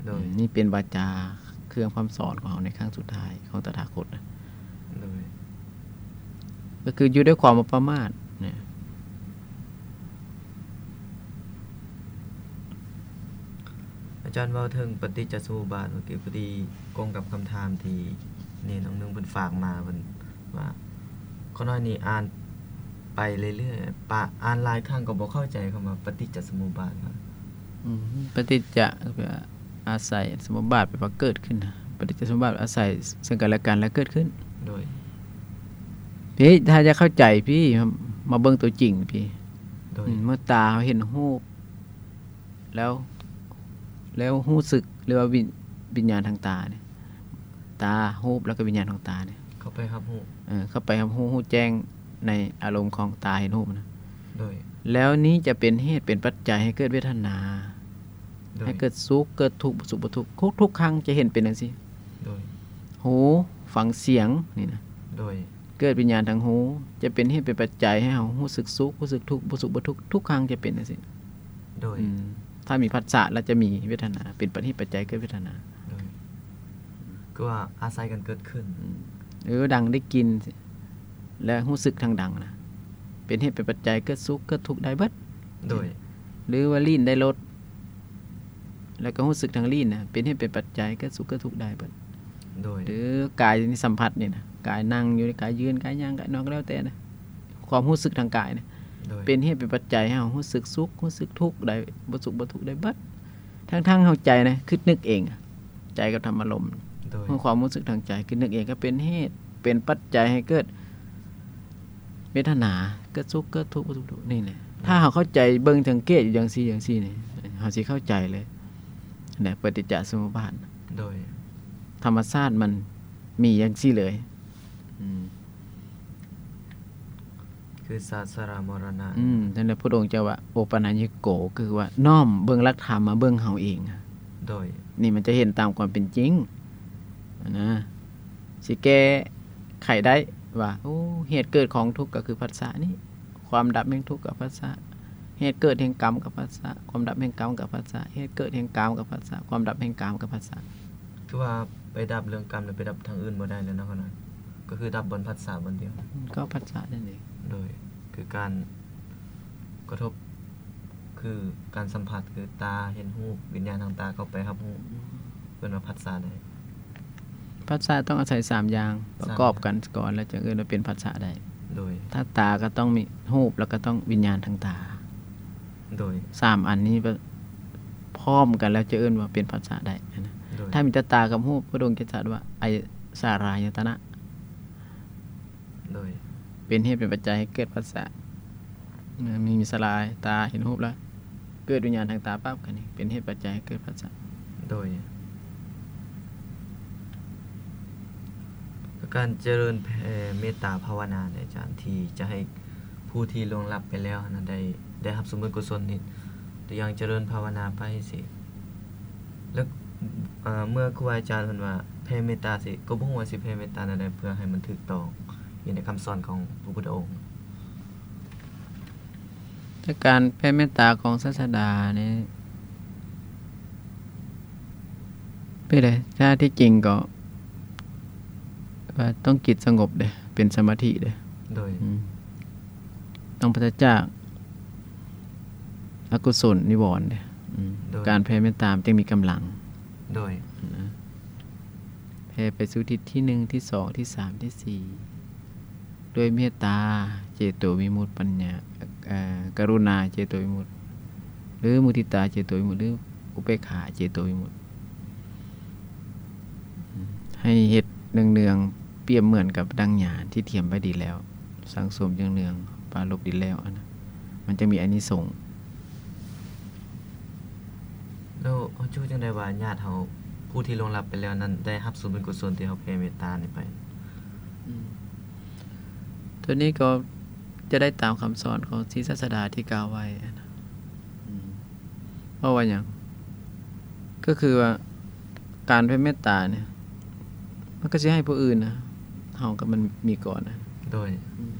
ໂດຍ ອືມ ນີ້ເປັນວາຈາເຄື່ອງຄຳສອນຂອງເຮົາໃນຄັ້ງສຸດທ້າຍຂອງຕະຖາຄົດນະ. ໂດຍ ກໍຄືຢູ່ດ້ວຍຄວາມບໍ່ປະໝາດນະ. ອາຈານເວົ້າເຖິງປະຕິດຈະສະມຸບາດ ເມື່ອກີ້ພໍດີກົງກັບຄຳຖາມທີ່ເນນອົງໜຶ່ງເພິ່ນຝາກມາ ເພິ່ນວ່າ ຂ້ານ້ອຍນີ້ອ່ານໄປເລື້ອຍໆ ປະ ອ່ານຫຼາຍຄັ້ງກໍບໍ່ເຂົ້າໃຈຄຳວ່າປະຕິດຈະສະມຸບາດ. ອືມ ປະຕິດຈະ ອາໄສ ສະມຸບາດ ແປວ່າເກີດຂຶ້ນນະ. ປະຕິດຈະສະມຸບາດ ອາໄສເຊິ່ງກັນແລະກັນແລ້ວເກີດຂຶ້ນ. ໂດຍ ພີ່ ຖ້າຢາກເຂົ້າໃຈ ພີ່ ມາເບິ່ງຕົວຈິງ ພີ່. ໂດຍ ອືມ ເມື່ອຕາເຮົາເຫັນຮູບ ແລ້ວ ແລ້ວຮູ້ສຶກ ຫຼືວ່າວິນ ວິນຍານທາງຕານີ້ ຕາ ຮູບ ແລ້ວກໍວິນຍານຂອງຕານີ້ ເຂົ້າໄປຮັບຮູ້ ເອີ ເຂົ້າໄປຮັບຮູ້ ຮູ້ແຈ້ງໃນອາລົມຂອງຕາເຫັນຮູບນະ. ໂດຍ ແລ້ວນີ້ຈະເປັນເຫດເປັນປັດໄຈໃຫ້ເກີດເວທະນາ ໂດຍ ໃຫ້ເກີດສຸກເກີດທຸກ ບໍ່ສຸກບໍ່ທຸກ ທຸກ ທຸກຄັ້ງຈະເຫັນເປັນຈັ່ງຊີ້. ໂດຍ ຫູຟັງສຽງນີ້ນະ. ໂດຍ ເກີດວິນຍານທາງຫູ ຈະເປັນເຫດເປັນປັດໄຈໃຫ້ເຮົາຮູ້ສຶກສຸກ ຮູ້ສຶກທຸກ ບໍ່ສຸກບໍ່ທຸກ ທຸກຄັ້ງຈະເປັນຈັ່ງຊີ້. ໂດຍ ອືມ ຖ້າມີພັດສະແລ້ວຈະມີເວທະນາ ເປັນປະຕິດເຫດປັດໄຈເກີດເວທະນາ. ໂດຍ ຄືວ່າອາໄສກັນເກີດຂຶ້ນ. ອືມ ເອີ ດັງໄດ້ກິນ ແລະ ຮູ້ສຶກທາງດັງນະ ເປັນເຫດເປັນປັດໄຈເກີດສຸກເກີດທຸກໄດ້ເບິດ. ໂດຍ ຫຼືວ່າລີ້ນໄດ້ລົດ ແລ້ວກໍຮູ້ສຶກທາງລີ້ນນະ ເປັນເຫດເປັນປັດໄຈເກີດສຸກເກີດທຸກໄດ້ເບິດ. ໂດຍ ຫຼືກາຍນີ້ສຳຜັດນີ້ນະ ກາຍນັ່ງຢູ່ ກາຍຢືນ ກາຍຍ່າງ ກາຍນອນ ກໍແລ້ວແຕ່ນະ ຄວາມຮູ້ສຶກທາງກາຍນະ. ໂດຍ ເປັນເຫດເປັນປັດໄຈໃຫ້ເຮົາຮູ້ສຶກສຸກ ຮູ້ສຶກທຸກໄດ້ ບໍ່ສຸກບໍ່ທຸກໄດ້ເບິດ ທັງໆເຮົາໃຈນະ ຄິດນຶກເອງ ໃຈກັບທຳອາລົມ. ໂດຍ ຄວາມຮູ້ສຶກທາງໃຈ ຄິດນຶກເອງ ກໍເປັນເຫດເປັນປັດໄຈໃຫ້ເກີດເວທະນາ ເກີດສຸກເກີດທຸກ ບໍ່ສຸກທຸກ ນີ້ແຫຼະ. ໂດຍ ຖ້າເຮົາເຂົ້າໃຈ ເບິ່ງສັງເກດຢູ່ຈັ່ງຊີ້ ຈັ່ງຊີ້ນີ້ ເຮົາຊິເຂົ້າໃຈເລີຍນະ ປະຕິດຈະສະມຸບາດ. ໂດຍ ທຳມະຊາດມັນມີຈັ່ງຊີ້ເລີຍ. ອືມ ຄືຊາດຊະລາມໍລະນະ. ອືມ ນັ້ນແຫຼະ ພະພຸດທະອົງເຈົ້າວ່າ ໂອປະນະຍິໂກ ຄືວ່ານ້ອມເບິ່ງຫຼັກທຳມາເບິ່ງເຮົາເອງ. ໂດຍ ນີ້ມັນຈະເຫັນຕາມຄວາມເປັນຈິງນະ ຊິແກ້ໄຂໄດ້ວ່າ ໂອ້ ເຫດເກີດຂອງທຸກກໍຄືພັດສະນີ້ ຄວາມດັບແຫ່ງທຸກກໍພັດສະ ເຫດເກີດແຫ່ງກຳກໍພັດສະ ຄວາມດັບແຫ່ງກຳກໍພັດສະ ເຫດເກີດແຫ່ງກາມກໍພັດສະ ຄວາມດັບແຫ່ງກາມກໍພັດສະ. ຄືວ່າໄປດັບເລື່ອງກຳ ແລ້ວໄປດັບທາງອື່ນບໍ່ໄດ້ແລ້ວເນາະ ກໍຄືດັບບ່ອນຜັດສະບ່ອນດຽວ ກໍຜັດສະນັ້ນເອງ. ໂດຍ ຄືການກະທົບ ຄືການສຳຜັດ ຄືຕາເຫັນຮູບ ວິນຍານທາງຕາເຂົ້າໄປຮັບຮູ້ ເອີ້ນວ່າຜັດສະໄດ້. ຜັດສະຕ້ອງອາໄສສາມຢ່າງປະກອບກັນກ່ອນ ແລ້ວຈຶ່ງເອີ້ນວ່າເປັນຜັດສະໄດ້. ໂດຍ ທາງຕາກໍຕ້ອງມີຮູບ ແລ້ວກໍຕ້ອງວິນຍານທາງຕາ. ໂດຍ ສາມອັນນີ້ ພ້ອມກັນແລ້ວຈະເອີ້ນວ່າເປັນພັດສະໄດ້ນະ. ໂດຍ ຖ້າມີແຕ່ຕາກັບຮູບ ພະອົງຈະຈັດວ່າ ອາສາລາຍະຕະນະ. ໂດຍ ເປັນເຫດເປັນປັດໄຈໃຫ້ເກີດພັດສະ. ມີ ມີສາລາຍ ຕາເຫັນຮູບແລ້ວ ເກີດວິນຍານທາງຕາປັບ ກໍນີ້ເປັນເຫດປັດໄຈໃຫ້ເກີດພັດສະ. ໂດຍ ການຈະເລີນແຜ່ເມດຕາພາວະນາເດ ອາຈານ ທີ່ຈະໃຫ້ຜູ້ທີ່ລ່ວງລັບໄປແລ້ວຫັ້ນນະ ໄດ້ ໄດ້ຮັບສ່ວນບຸນກຸສົນນີ້ ຕົວຢ່າງຈະເລີນພາວະນາໄປຊີ້ ແລ້ວ ເອີ ເມື່ອຄູບາອາຈານເພິ່ນວ່າແຜ່ເມດຕາຊີ້ ກໍບໍ່ຮູ້ວ່າຊິແຜ່ເມດຕາແນວໃດ ເພື່ອໃຫ້ມັນຖືກຕ້ອງຢູ່ໃນຄຳສອນຂອງພະພຸດທະອົງ. ແຕ່ການແຜ່ເມດຕາຂອງສາດສະດານີ້ ເປັນໃດ? ຖ້າທີ່ຈິງກໍວ່າຕ້ອງຈິດສະຫງົບເດ້ ເປັນສະມາທິເດ້. ໂດຍ ອືມ ຕ້ອງປາສະຈາກອະກຸສົນນິວອນເດ້. ອືມ ໂດຍ ການແຜ່ເມດຕາມັນຈຶ່ງມີກຳລັງ. ໂດຍ ນະ ແຜ່ໄປສູ່ທິດທີໜຶ່ງ ທີສອງ ທີສາມ ທີສີ່ ດ້ວຍເມດຕາເຈໂຕວິມຸດ ປັນຍາ ເອີ ກະລຸນາເຈໂຕວິມຸດ ຫຼື ມຸທິຕາເຈໂຕວິມຸດ ຫຼື ອຸເບກຂາເຈໂຕວິມຸດ ໃຫ້ເຮັດເນືອງໆ ປຽບເໝືອນກັບດັ່ງຍານທີ່ຕຽມໄວ້ດີແລ້ວ ສັງສົມເນືອງໆ ປາລົບດີແລ້ວ ອັນນັ້ນມັນຈະມີອານິສົງ. ແລ້ວເຮົາຈະຮູ້ຈັ່ງໃດວ່າຍາດເຮົາ ຜູ້ທີ່ລ່ວງລັບໄປແລ້ວນັ້ນ ໄດ້ຮັບສ່ວນບຸນກຸສົນທີ່ເຮົາແຜ່ເມດຕານີ້ໄປ? ອືມ ຕົວນີ້ກໍຈະໄດ້ຕາມຄຳສອນຂອງສີສາດສະດາທີ່ກ່າວໄວ້ນະ. ອືມ ເພາະວ່າຫຍັງ? ກໍຄືວ່າການແຜ່ເມດຕານີ້ ມັນກໍຊິໃຫ້ຜູ້ອື່ນນະ ເຮົາກໍມັນມີກ່ອນນະ. ໂດຍ ອືມ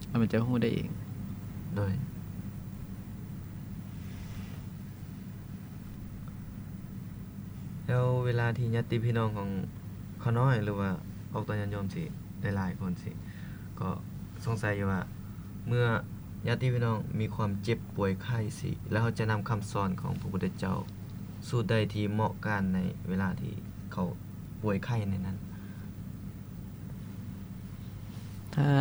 ແລ້ວມັນຈະຮູ້ໄດ້ເອງ. ໂດຍ ແລ້ວເວລາທີ່ຍາດຕິພີ່ນ້ອງຂອງຂ້ານ້ອຍ ຫຼືວ່າອອກຕົນຍາດໂຍມຊີ້ ຫຼາຍໆຄົນຊີ້ ກໍສົງໄສຢູ່ວ່າ ເມື່ອຍາດຕິພີ່ນ້ອງມີຄວາມເຈັບປ່ວຍໄຂ້ຊີ້ ແລ້ວເຮົາຈະນຳຄຳສອນຂອງພະພຸດທະເຈົ້າສູດໃດທີ່ເໝາະການໃນເວລາທີ່ເຂົາປ່ວຍໄຂ້ໃນນັ້ນ? ຖ້າ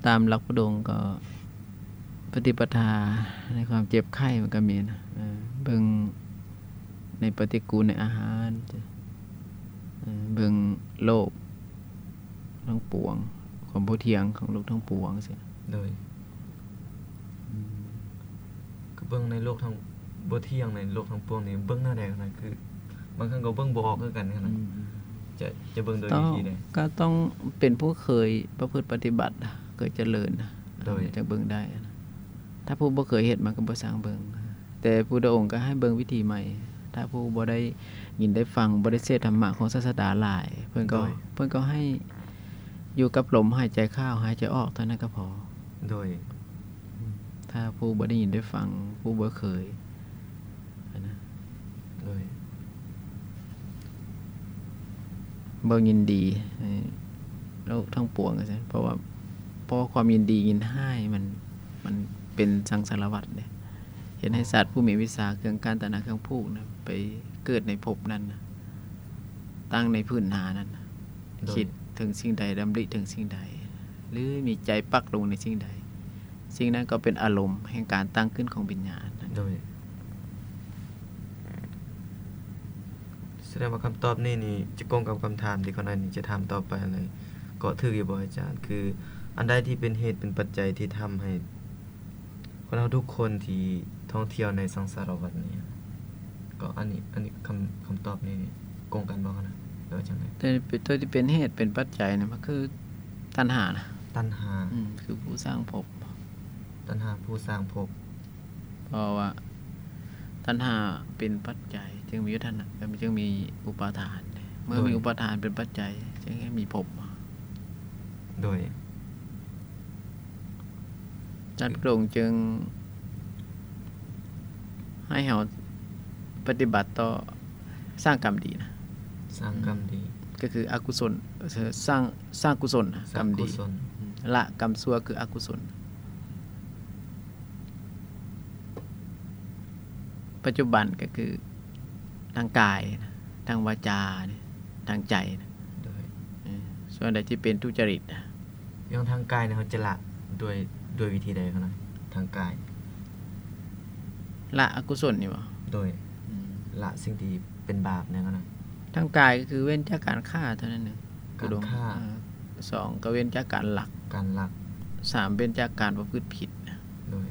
ຕາມຫຼັກພຸດອົງກໍ ປະຕິປະທາໃນຄວາມເຈັບໄຂ້ມັນກໍມີນະ ເອີ ເບິ່ງໃນປະຕິກູນໃນອາຫານ ເອີ ເບິ່ງໂລກທັງປວງ ຄວາມບໍ່ທ່ຽງຂອງໂລກທັງປວງຊີ້. ໂດຍ ອືມ ກໍເບິ່ງໃນໂລກທັງ ບໍ່ທ່ຽງໃນໂລກທັງປວງນີ້ ເບິ່ງແນວໃດນະ? ຄືບາງຄັ້ງກໍເບິ່ງບໍ່ອອກຄືກັນນະ ອືມ ຈະ ຈະເບິ່ງໂດຍວິທີໃດ? ກໍຕ້ອງເປັນຜູ້ເຄີຍປະພຶດປະຕິບັດ ເຄີຍຈະເລີນ ໂດຍ ຈັ່ງເບິ່ງໄດ້. ຖ້າຜູ້ບໍ່ເຄີຍເຮັດ ມັນກໍບໍ່ຊ່າງເບິ່ງ. ແຕ່ພຸດທະອົງກໍໃຫ້ເບິ່ງວິທີໃໝ່. ຖ້າຜູ້ບໍ່ໄດ້ຍິນໄດ້ຟັງ ບໍ່ໄດ້ເສບທຳມະຂອງສາດສະດາຫຼາຍ ເພິ່ນກໍ ໂດຍ ເພິ່ນກໍໃຫ້ຢູ່ກັບລົມຫາຍໃຈເຂົ້າ ຫາຍໃຈອອກເທົ່ານັ້ນກໍພໍ. ໂດຍ ອືມ ຖ້າຜູ້ບໍ່ໄດ້ຍິນໄດ້ຟັງ ຜູ້ບໍ່ເຄີຍຫັ້ນນະ ໂດຍ ບໍ່ຍິນດີໃຫ້ໂລກທັງປວງວ່າຊັ້ນ ເພາະວ່າ ເພາະຄວາມຍິນດີຍິນຮ້າຍມັນ ມັນເປັນສັງສາລະວັດເດ້ ເຮັດໃຫ້ ອໍ ສັດຜູ້ມີວິຊາເຄື່ອງກັ້ນ ຕັນຫາເຄື່ອງຜູກນະ ໄປເກີດໃນພົບນັ້ນນະ ຕັ້ງໃນພື້ນໜ້ານັ້ນນະ ໂດຍ ຄິດເຖິງສິ່ງໃດ ດຳລິເຖິງສິ່ງໃດ ຫຼື ມີໃຈປັກລົງໃນສິ່ງໃດ ສິ່ງນັ້ນກໍເປັນອາລົມແຫ່ງການຕັ້ງຂຶ້ນຂອງວິນຍານ. ໂດຍ ສະແດງວ່າຄຳຕອບນີ້ນີ້ຈະກົງກັບຄຳຖາມທີ່ຂ້ານ້ອຍນີ້ຈະຖາມຕໍ່ໄປເລີຍ ກໍຖືກຢູ່ບໍ່ອາຈານ? ຄືອັນໃດທີ່ເປັນເຫດເປັນປັດໄຈທີ່ທຳໃຫ້ຄົນເຮົາທຸກຄົນທີ່ທ່ອງທ່ຽວໃນສັງສາລະວັດນີ້? ກໍອັນນີ້ ອັນນີ້ຄຳ ຄຳຕອບນີ້ກົງກັນບໍ່ຫັ້ນນະ ຫຼືວ່າຈັ່ງໃດ? ແຕ່ໂຕທີ່ເປັນເຫດເປັນປັດໄຈນະ ມັນຄືຕັນຫານະ ຕັນຫາ ອືມ ຄືຜູ້ສ້າງພົບ ຕັນຫາຜູ້ສ້າງພົບ ເພາະວ່າຕັນຫາເປັນປັດໄຈຈຶ່ງມີອຸປາທານ ຈຶ່ງມີອຸປາທານ ເມື່ອມີ ໂດຍ ອຸປາທານເປັນປັດໄຈຈຶ່ງໃຫ້ມີພົບ. ໂດຍ ຈັດລົງຈຶ່ງໃຫ້ເຮົາປະຕິບັດຕໍ່ສ້າງກຳດີນະ ສ້າງກຳດີ ອືມ ກໍຄືອະກຸສົນ ເອີ ສ້າງ ສ້າງກຸສົນນະ ກຳດີ ອືມ ລະກຳຊົ່ວຄືອະກຸສົນ. ປັດຈຸບັນກໍຄືທາງກາຍນະ ທາງວາຈານະ ທາງໃຈນະ ໂດຍ ເອີ ສ່ວນໃດທີ່ເປັນທຸຈະລິດນະ ຢ່າງທາງກາຍນີ້ເຮົາຈະລະດ້ວຍ ດ້ວຍວິທີໃດຫັ້ນນະ? ທາງກາຍ ລະອະກຸສົນນີ້ບໍ? ໂດຍ ອືມ ລະສິ່ງທີ່ເປັນບາບແນວນັ້ນນະ ທາງກາຍກໍຄືເວັ້ນຈາກການຂ້າເທົ່ານັ້ນເອງ. ການຂ້າ ເອີ ສອງ ກໍເວັ້ນຈາກການລັກ ການລັກ ສາມ ເວັ້ນຈາກການປະພຶດຜິດ. ໂດຍ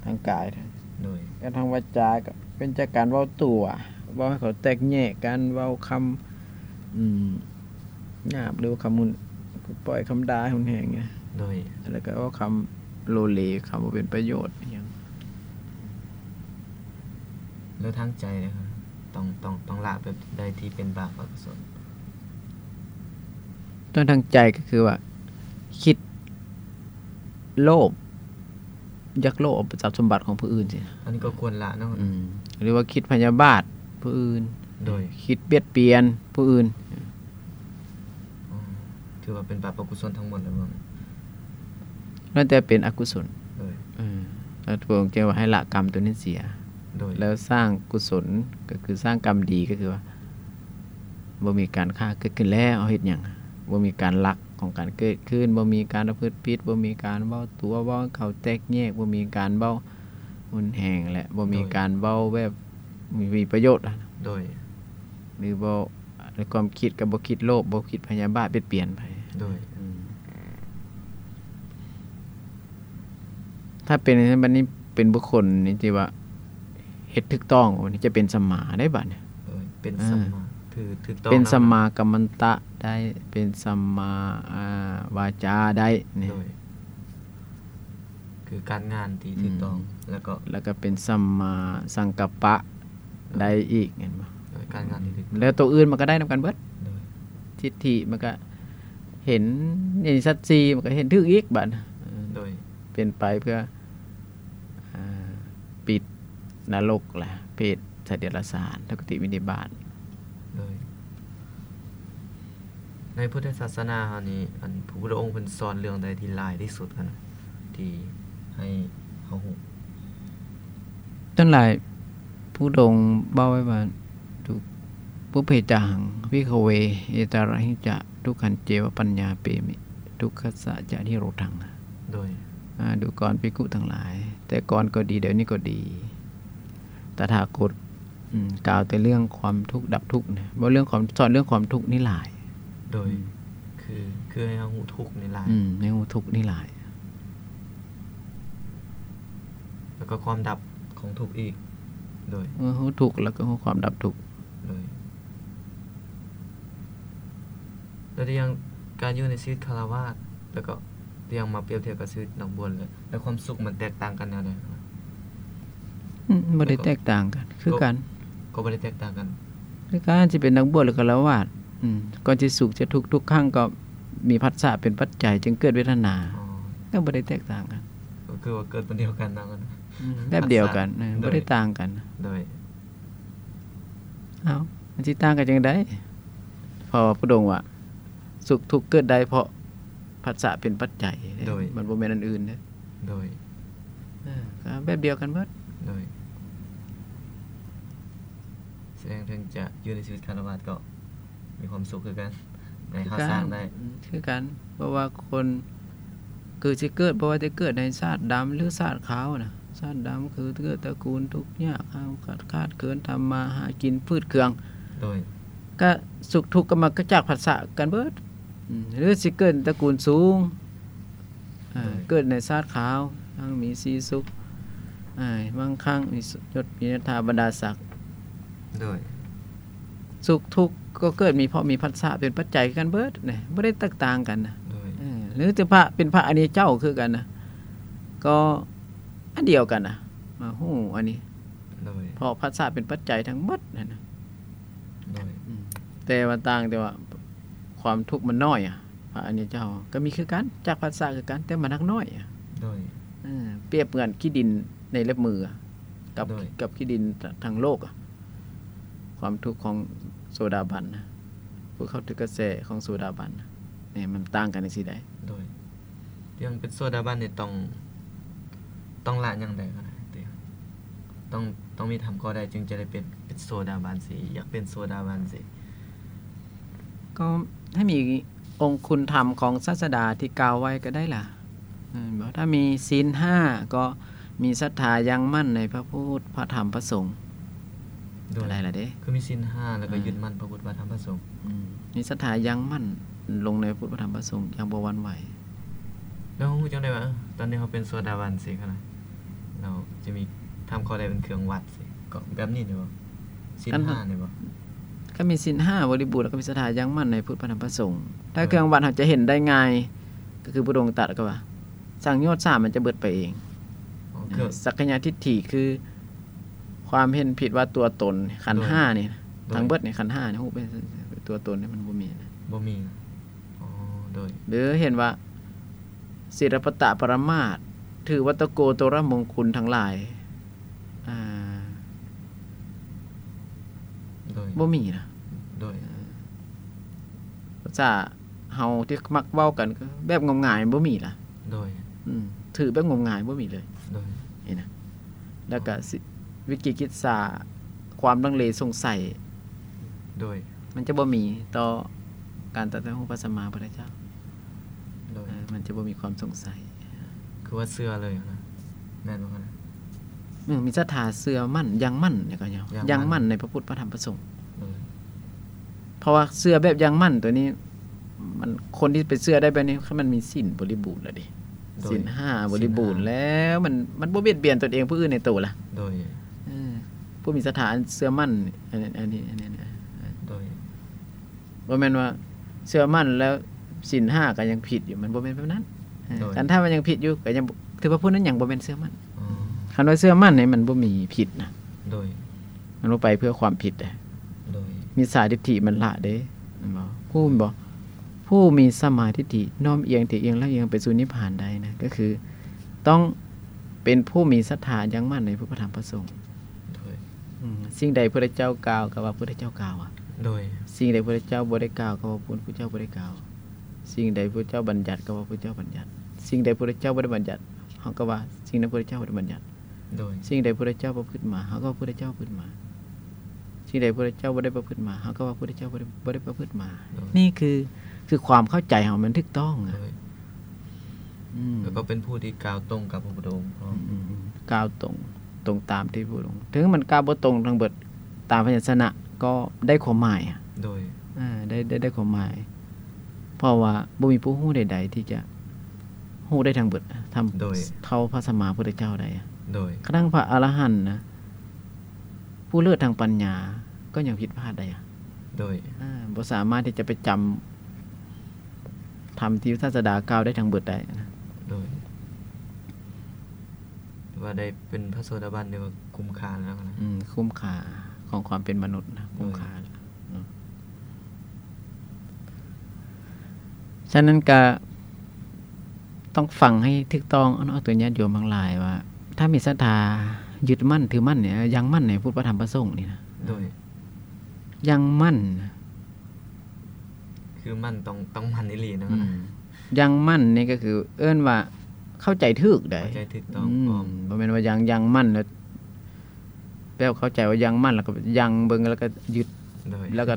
ທາງກາຍ ໂດຍ ແລະ ທາງວາຈາກໍເວັ້ນຈາກການເວົ້າຕົວະ ເວົ້າໃຫ້ເຂົາແຕກແຍກກັນ ເວົ້າຄຳ ອືມ ຫຍາບ ຫຼືວ່າຄຳຮຸນ ປ່ອຍຄຳດ່າຮຸນແຮງ ໂດຍ ແລ້ວກໍເວົ້າຄຳໂລເລ ຄຳບໍ່ເປັນປະໂຫຍດອີ່ຫຍັງ. ແລ້ວທາງໃຈເດ? ຕ້ອງ ຕ້ອງ ຕ້ອງລະແບບໃດທີ່ເປັນບາບອະກຸສົນ? ຕ້ອງທາງໃຈກໍຄືວ່າ ຄິດໂລບ ຢາກໂລບເອົາຊັບສົມບັດຂອງຜູ້ອື່ນຊີ້ນະ ອັນນີ້ກໍຄວນລະເນາະ ອືມ ຫຼືວ່າຄິດພະຍາບາດຜູ້ອື່ນ ໂດຍ ຄິດບຽດບຽນຜູ້ອື່ນ ອືມ ຖືວ່າເປັນບາບອະກຸສົນທັງໝົດແລ້ວບໍ່? ນັ້ນແຕ່ເປັນອະກຸສົນ ໂດຍ ເອີ ແລ້ວພະອົງຈຶ່ງວ່າໃຫ້ລະກຳໂຕນັ້ນເສຍ ໂດຍ ແລ້ວສ້າງກຸສົນ ກໍຄືສ້າງກຳດີ ກໍຄືວ່າ ບໍ່ມີການຂ້າເກີດຂຶ້ນແລ້ວ ເຮົາເຮັດຫຍັງ? ບໍ່ມີການລັກຂອງການເກີດຂຶ້ນ ບໍ່ມີການປະພຶດຜິດ ບໍ່ມີການເວົ້າຕົວະ ເວົ້າໃຫ້ເຂົາແຕກແຍກ ບໍ່ມີການເວົ້າຮຸນແຮງ ແລະ ບໍ່ມີ ໂດຍ ການເວົ້າແບບມີປະໂຫຍດ ໂດຍ ຫຼືບໍ່ ໃນຄວາມຄິດກໍບໍ່ຄິດໂລບ ບໍ່ຄິດພະຍາບາດບຽດບຽນໃຜ ໂດຍ ອືມ ຖ້າເປັນ ບັດນີ້ເປັນບຸກຄົນນີ້ທີ່ວ່າເຮັດຖືກຕ້ອງ ບັດນີ້ຈະເປັນສຳມາໄດ້ບັດນີ້ ເອີ ເປັນ ເອີ ສຳມາ ຖືກ ຖືກຕ້ອງ ເປັນ ນຳ ສຳມາກັມມັນຕະໄດ້ ເປັນສຳມາ ອ່າ ວາຈາໄດ້ນີ້ ໂດຍ ຄືການງານທີ່ຖືກຕ້ອງ ອືມ ແລ້ວກໍ ແລ້ວກໍເປັນສຳມາສັງກັບປະ ໂດຍ ໄດ້ອີກ ແມ່ນບໍ່? ໂດຍ ການງານທີ່ຖືກຕ້ອງ ແລ້ວໂຕອື່ນມັນກໍໄດ້ນຳກັນເບິດ ໂດຍ ທິດຖິມັນກໍເຫັນໃນສັດສີ່ ມັນກໍເຫັນຖືກອີກບັດ ໂດຍ ເປັນໄປເພື່ອ ອ່າ ປິດນະລົກ ແລະ ເປດ ສັດເດຍລະສານ ທຸກຕິວິນິບາດ ໂດຍ ໃນພຸດທະສາສະໜາເຮົານີ້ ອັນ ພະພຸດທະອົງເພິ່ນສອນເລື່ອງໃດທີ່ຫຼາຍທີ່ສຸດຫັ້ນນະ ທີ່ໃຫ້ເຮົາຮູ້? ສ່ວນຫຼາຍ ພະພຸດທະອົງເວົ້າໄວ້ວ່າ ທຸ ປຸບເພຈະຫັງ ພິກຂະເວ ເອຕາຣະຫິຈະ ທຸກຂັນເຈວະ ປັນຍາເປມິ ທຸກຂັດສະຈະນິໂຣດທັງ. ໂດຍ ອາ ດູກອນພິກຂຸທັງຫຼາຍ ແຕ່ກ່ອນກໍດີ ດຽວນີ້ກໍດີ ຕະຖາຄົດ ອືມ ກ່າວແຕ່ເລື່ອງຄວາມທຸກດັບທຸກນະ ເວົ້າເລື່ອງຄວາມ ສອນເລື່ອງຄວາມທຸກນີ້ຫຼາຍ. ໂດຍ ອືມ ຄື ຄືໃຫ້ເຮົາຮູ້ທຸກນີ້ຫຼາຍ. ອືມ ໃຫ້ຮູ້ທຸກນີ້ຫຼາຍ ແລ້ວກໍຄວາມດັບຂອງທຸກອີກ. ໂດຍ ເອີ ຮູ້ທຸກແລ້ວກໍຮູ້ຄວາມດັບທຸກ. ໂດຍ ແລ້ວຢ່າງການຢູ່ໃນຊີວິດຄາລະວາດ ແລ້ວກໍຢ່າງມາປຽບທຽບກັບຊີວິດນັກບວດ ແລ້ວ ແລ້ວຄວາມສຸກມັນແຕກຕ່າງກັນແນວໃດ? ອືມ ບໍ່ໄດ້ແຕກຕ່າງກັນ ຄືກັນ. ກໍ ກໍບໍ່ໄດ້ແຕກຕ່າງກັນ ຄືກັນ ຊິເປັນນັກບວດ ຫຼື ຄາລະວາດ. ອືມ ກ່ອນຊິສຸກຈະທຸກ ທຸກຄັ້ງກໍມີພັດສະເປັນປັດໄຈ ຈຶ່ງເກີດເວທະນາ. ອໍ ກໍບໍ່ໄດ້ແຕກຕ່າງກັນ ກໍຄືວ່າເກີດວັນດຽວກັນເນາະ. ອືມ ແບບດຽວກັນ ພັດສະ ເອີ ໂດຍ ບໍ່ໄດ້ຕ່າງກັນ. ໂດຍ ເອົ້າ ມັນຊິຕ່າງກັນຈັ່ງໃດ? ເພາະວ່າພະພຸດທະອົງວ່າ ສຸກທຸກເກີດໄດ້ເພາະພັດສະເປັນປັດໄຈເດ້. ໂດຍ ມັນບໍ່ແມ່ນອັນອື່ນເດ້. ໂດຍ ເອີ ກໍແບບດຽວກັນເບິດ. ໂດຍ ສະແດງເຖິງຈະຢູ່ໃນຊີວິດຄາລະວາດກໍມີຄວາມສຸກຄືກັນ ໃນເຮົາສ້າງໄດ້ ອືມ ຄືກັນ. ເພາະວ່າຄົນ ຄືຊິເກີດ ບໍ່ວ່າຈະເກີດໃນຊາດດຳ ຫຼື ຊາດຂາວນະ ຊາດດຳຄືເກີດຕະກູນທຸກຍາກ ຂາດ ຂາດເຂີນ ທຳມາຫາກິນ ຝືດເຄືອງ. ໂດຍ ກະສຸກທຸກກໍມາຈາກພັດສະກັນເບິດ. ອືມ ຫຼືຊິເກີດຕະກູນສູງ ໂດຍ ເກີດໃນຊາດຂາວ ຮັ່ງມີສີສຸກ ອາ ມັງຄັງ ມີຍົດ ມີຍດຖາ ບັນດາສັກ. ໂດຍ ສຸກທຸກກໍເກີດມີ ເພາະມີພັດສະເປັນປັດໄຈຄືກັນເບິດນະ ບໍ່ໄດ້ແຕກຕ່າງກັນນະ. ໂດຍ ເອີ ຫຼືຈະພະ ເປັນພະອະລິຍະເຈົ້າຄືກັນນະ ກໍອັນດຽວກັນນະ ມາຮູ້ອັນນີ້. ໂດຍ ເພາະພັດສະເປັນປັດໄຈທັງໝົດຫັ້ນນະ. ໂດຍ ອືມ ແຕ່ວ່າຕ່າງແຕ່ວ່າຄວາມທຸກມັນນ້ອຍອະ. ພະອະລິຍະເຈົ້າກໍມີຄືກັນ ຈາກພັດສະຄືກັນ ແຕ່ມັນໜັກໜ້ອຍ. ໂດຍ ເອີ ປຽບເໝືອນຂີ້ດິນໃນເລັບມືກັບ ໂດຍ ກັບຂີ້ດິນທາງໂລກ. ຄວາມທຸກຂອງໂສດາບັນນະ ຜູ້ເຂົ້າເຖິງກະແສຂອງໂສດາບັນນະ ນີ້ມັນຕ່າງກັນຈັ່ງຊີ້ໃດ. ໂດຍ ຢ່າງເປັນໂສດາບັນນີ້ຕ້ອງ ຕ້ອງລະຫຍັງແດ່ກໍໄດ້ຕິ? ຕ້ອງ ຕ້ອງມີທຳຂໍ້ໃດຈຶ່ງຈະໄດ້ເປັນ ເປັນໂສດາບັນຊີ້ ຢາກເປັນໂສດາບັນຊີ້? ກໍໃຫ້ມີອົງຄຸນທຳຂອງສາດສະດາທີ່ກ່າວໄວ້ກໍໄດ້ລະ ແມ່ນບໍ່? ຖ້າມີສິນຫ້າ ກໍມີສັດທາຢັ້ງໝັ້ນໃນພະພຸດ ພະທຳ ພະສົງ ໂດຍ ກໍໄດ້ລະເດ້. ຄືມີສິນຫ້າ ແລ້ວກໍ ອ່າ ຍຶດໝັ້ນພະພຸດ ພະທຳ ພະສົງ. ອືມ ມີສັດທາຢັ້ງໝັ້ນລົງໃນພະພຸດ ພະທຳ ພະສົງຢ່າງບໍ່ຫວັ່ນໄຫວ. ແລ້ວເຮົາຮູ້ຈັ່ງໃດວ່າ ເອີ ຕອນນີ້ເຮົາເປັນໂສດາບັນຊີ້ຫັ້ນນະ? ເຮົາຈະມີທຳຂໍ້ໃດເປັນເຄື່ອງວັດຊີ້ ກໍແບບນີ້ນີ້ບໍ່? ສິນຫ້ານີ້ບໍ່? ຄັນມີສິນຫ້າບໍລິບູນ ແລ້ວກໍມີສັດທາຢັ້ງໝັ້ນໃນພຸດ ພະທຳ ພະສົງ. ຖ້າເຄື່ອງວັດເຮົາຈະເຫັນໄດ້ງ່າຍ ກໍຄືພະອົງຕັດກໍວ່າ ສັງໂຍດສາມມັນຈະເບິດໄປເອງ. ອໍ ຄື ສັກກະຍະທິດຖິຄືຄວາມເຫັນຜິດວ່າຕົວຕົນ ຂັນຫ້ານີ້ ໂດຍ ທັງເບິດນີ້ ຂັນຫ້ານີ້ ຮູບເປັນຕົວຕົນນີ້ມັນບໍ່ມີນະ ບໍ່ມີນະ. ອໍ ໂດຍ ຫຼືເຫັນວ່າສິລະປະຕະປະລະມາດ ຖືວັດຕະໂກໂຕລະມົງຄຸນທັງຫຼາຍ ອ່າ ໂດຍ ບໍ່ມີນະ. ໂດຍ ເອີ ພາສາເຮົາທີ່ມັກເວົ້າກັນ ແບບງົມງາຍບໍ່ມີລະ. ໂດຍ ອືມ ຖືແບບງົມງາຍບໍ່ມີເລີຍ. ໂດຍ ນີ້ນະ ແລ້ວກະ ອໍ ວິກິກິດສາ ຄວາມລັງເລສົງໄສ ໂດຍ ມັນຈະບໍ່ມີຕໍ່ການຕັດສະຮູ້ພະສຳມາພຸດທະເຈົ້າ. ໂດຍ ເອີ ມັນຈະບໍ່ມີຄວາມສົງໄສ ຄືວ່າເຊື່ອເລີຍນະ ແມ່ນບໍ່ນະ? ອືມ ມີສັດທາເຊື່ອໝັ້ນ ຢັ້ງໝັ້ນ ຍັງໝັ້ນໃນພະພຸດ ພະທຳ ພະສົງ. ໂດຍ ເພາະວ່າເຊື່ອແບບຢັ້ງໝັ້ນຕົວນີ້ ມັນ ຄົນທີ່ໄປເຊື່ອໄດ້ແບບນີ້ ຄັນມັນມີສິນບໍລິບູນແລ້ວເດ້. ໂດຍ ສິນຫ້າບໍລິບູນແລ້ວ ມັນ ມັນບໍ່ບຽດບຽນຕົນເອງຜູ້ອື່ນໃນໂຕລະ. ໂດຍ ເອີ ຜູ້ມີສັດທາອັນເຊື່ອໝັ້ນ ອັນ ອັນນີ້ ອັນນີ້ ໂດຍ ບໍ່ແມ່ນວ່າເຊື່ອໝັ້ນແລ້ວສິນຫ້າກໍຍັງຜິດຢູ່ ມັນບໍ່ແມ່ນແບບນັ້ນ. ໂດຍ ຄັນຖ້າມັນຍັງຜິດຢູ່ ກໍຍັງ ຖືວ່າຜູ້ນັ້ນຍັງບໍ່ແມ່ນເຊື່ອໝັ້ນ. ອໍ ຄັນວ່າເຊື່ອໝັ້ນນີ້ມັນບໍ່ມີຜິດນະ. ໂດຍ ມັນບໍ່ໄປເພື່ອຄວາມຜິດເດ້. ໂດຍ ມິດສາທິດຖິມັນລະເດ້ ແມ່ນບໍ່? ຮູ້ແມ່ນບໍ່? ຜູ້ມີສຳມາທິດຖິນ້ອມອຽງທີ່ອຽງລະອຽງໄປສູ່ນິບພານໄດ້ນະ ກໍຄືຕ້ອງເປັນຜູ້ມີສັດທາຍັງໝັ້ນໃນພະທຳພະສົງ. ໂດຍ ອືມ ສິ່ງໃດພະເຈົ້າກ່າວ ກໍວ່າພະເຈົ້າກ່າວອະ. ໂດຍ ສິ່ງໃດພະພຸດທະເຈົ້າບໍ່ໄດ້ກ່າວ ກໍວ່າພະພຸດທະເຈົ້າບໍ່ໄດ້ກ່າວ, ສິ່ງໃດພະພຸດທະເຈົ້າບັນຍັດ ກໍວ່າພະພຸດທະເຈົ້າບັນຍັດ, ສິ່ງໃດພະພຸດທະເຈົ້າບໍ່ໄດ້ບັນຍັດ ເຮົາກໍວ່າສິ່ງນັ້ນພະພຸດທະເຈົ້າບໍ່ໄດ້ບັນຍັດ. ໂດຍ ສິ່ງໃດພະພຸດທະເຈົ້າປະພຶດມາ ເຮົາກໍວ່າພະພຸດທະເຈົ້າປະພຶດມາ, ສິ່ງໃດພະພຸດທະເຈົ້າບໍ່ໄດ້ປະພຶດມາ ເຮົາກໍວ່າພະພຸດທະເຈົ້າບໍ່ໄດ້ ບໍ່ໄດ້ປະພຶດມາ. ໂດຍ ນີ້ຄື ຄືຄວາມເຂົ້າໃຈເຮົາມັນຖືກຕ້ອງນະ. ໂດຍ ອືມ ແລ້ວກໍເປັນຜູ້ທີ່ກ່າວຕົງກັບພະພຸດທະອົງພ້ອມ. ອືມ ກ່າວຕົງ ຕົງຕາມທີ່ພະພຸດທະອົງ, ເຖິງມັນກ່າວບໍ່ຕົງທັງເບິດຕາມພະຍັນຊະນະ ກໍໄດ້ຄວາມໝາຍ. ໂດຍ ເອີ ໄດ້ ໄດ້ ໄດ້ຄວາມໝາຍ ເພາະວ່າບໍ່ມີຜູ້ຮູ້ໃດໆທີ່ຈະຮູ້ໄດ້ທັງເບິດ ທຳ ໂດຍ ເທົ່າພະສຳມາພຸດທະເຈົ້າໄດ້. ໂດຍ ກະທັ່ງພະອະລະຫັນນະ ຜູ້ເລີດທາງປັນຍາ ກໍຍັງຜິດພາດໄດ້. ໂດຍ ເອີ ບໍ່ສາມາດທີ່ຈະໄປຈຳທຳທີ່ສາດສະດາກ່າວໄດ້ທັງເບິດໄດ້. ໂດຍ ຖືວ່າໄດ້ເປັນພະໂສດາບັນ ຖືວ່າຄຸ້ມຄ່າແລ້ວນະ. ອືມ ຄຸ້ມຄ່າຂອງຄວາມເປັນມະນຸດນະ ໂດຍ ຄຸ້ມຄ່າແລ້ວເນາະ. ສະນັ້ນກະຕ້ອງຟັງໃຫ້ຖືກຕ້ອງເນາະ ໂຕຍາດໂຍມທັງຫຼາຍວ່າ ຖ້າມີສັດທາຍຶດໝັ້ນຖືໝັ້ນນີ້ ຢັ້ງໝັ້ນໃນພຸດ ພະ ທຳ ພະສົງນີ້ນະ. ໂດຍ ຢັ້ງໝັ້ນ ຄືໝັ້ນ ຕ້ອງ ຕ້ອງໝັ້ນອີ່ຫຼີເນາະ. ອືມ ຢັ້ງໝັ້ນນີ້ກໍຄືເອີ້ນວ່າເຂົ້າໃຈຖືກໄດ໋ ເຂົ້າໃຈຖືກຕ້ອງ. ອືມ ພ້ອມ ບໍ່ແມ່ນວ່າຢັ້ງ ຢັ້ງໝັ້ນແລ້ວ ແບບເຂົ້າໃຈວ່າຢັ້ງໝັ້ນ ແລ້ວກໍຢັ້ງເບິ່ງ ແລ້ວກໍຍຶດ ໂດຍ ແລ້ວກໍ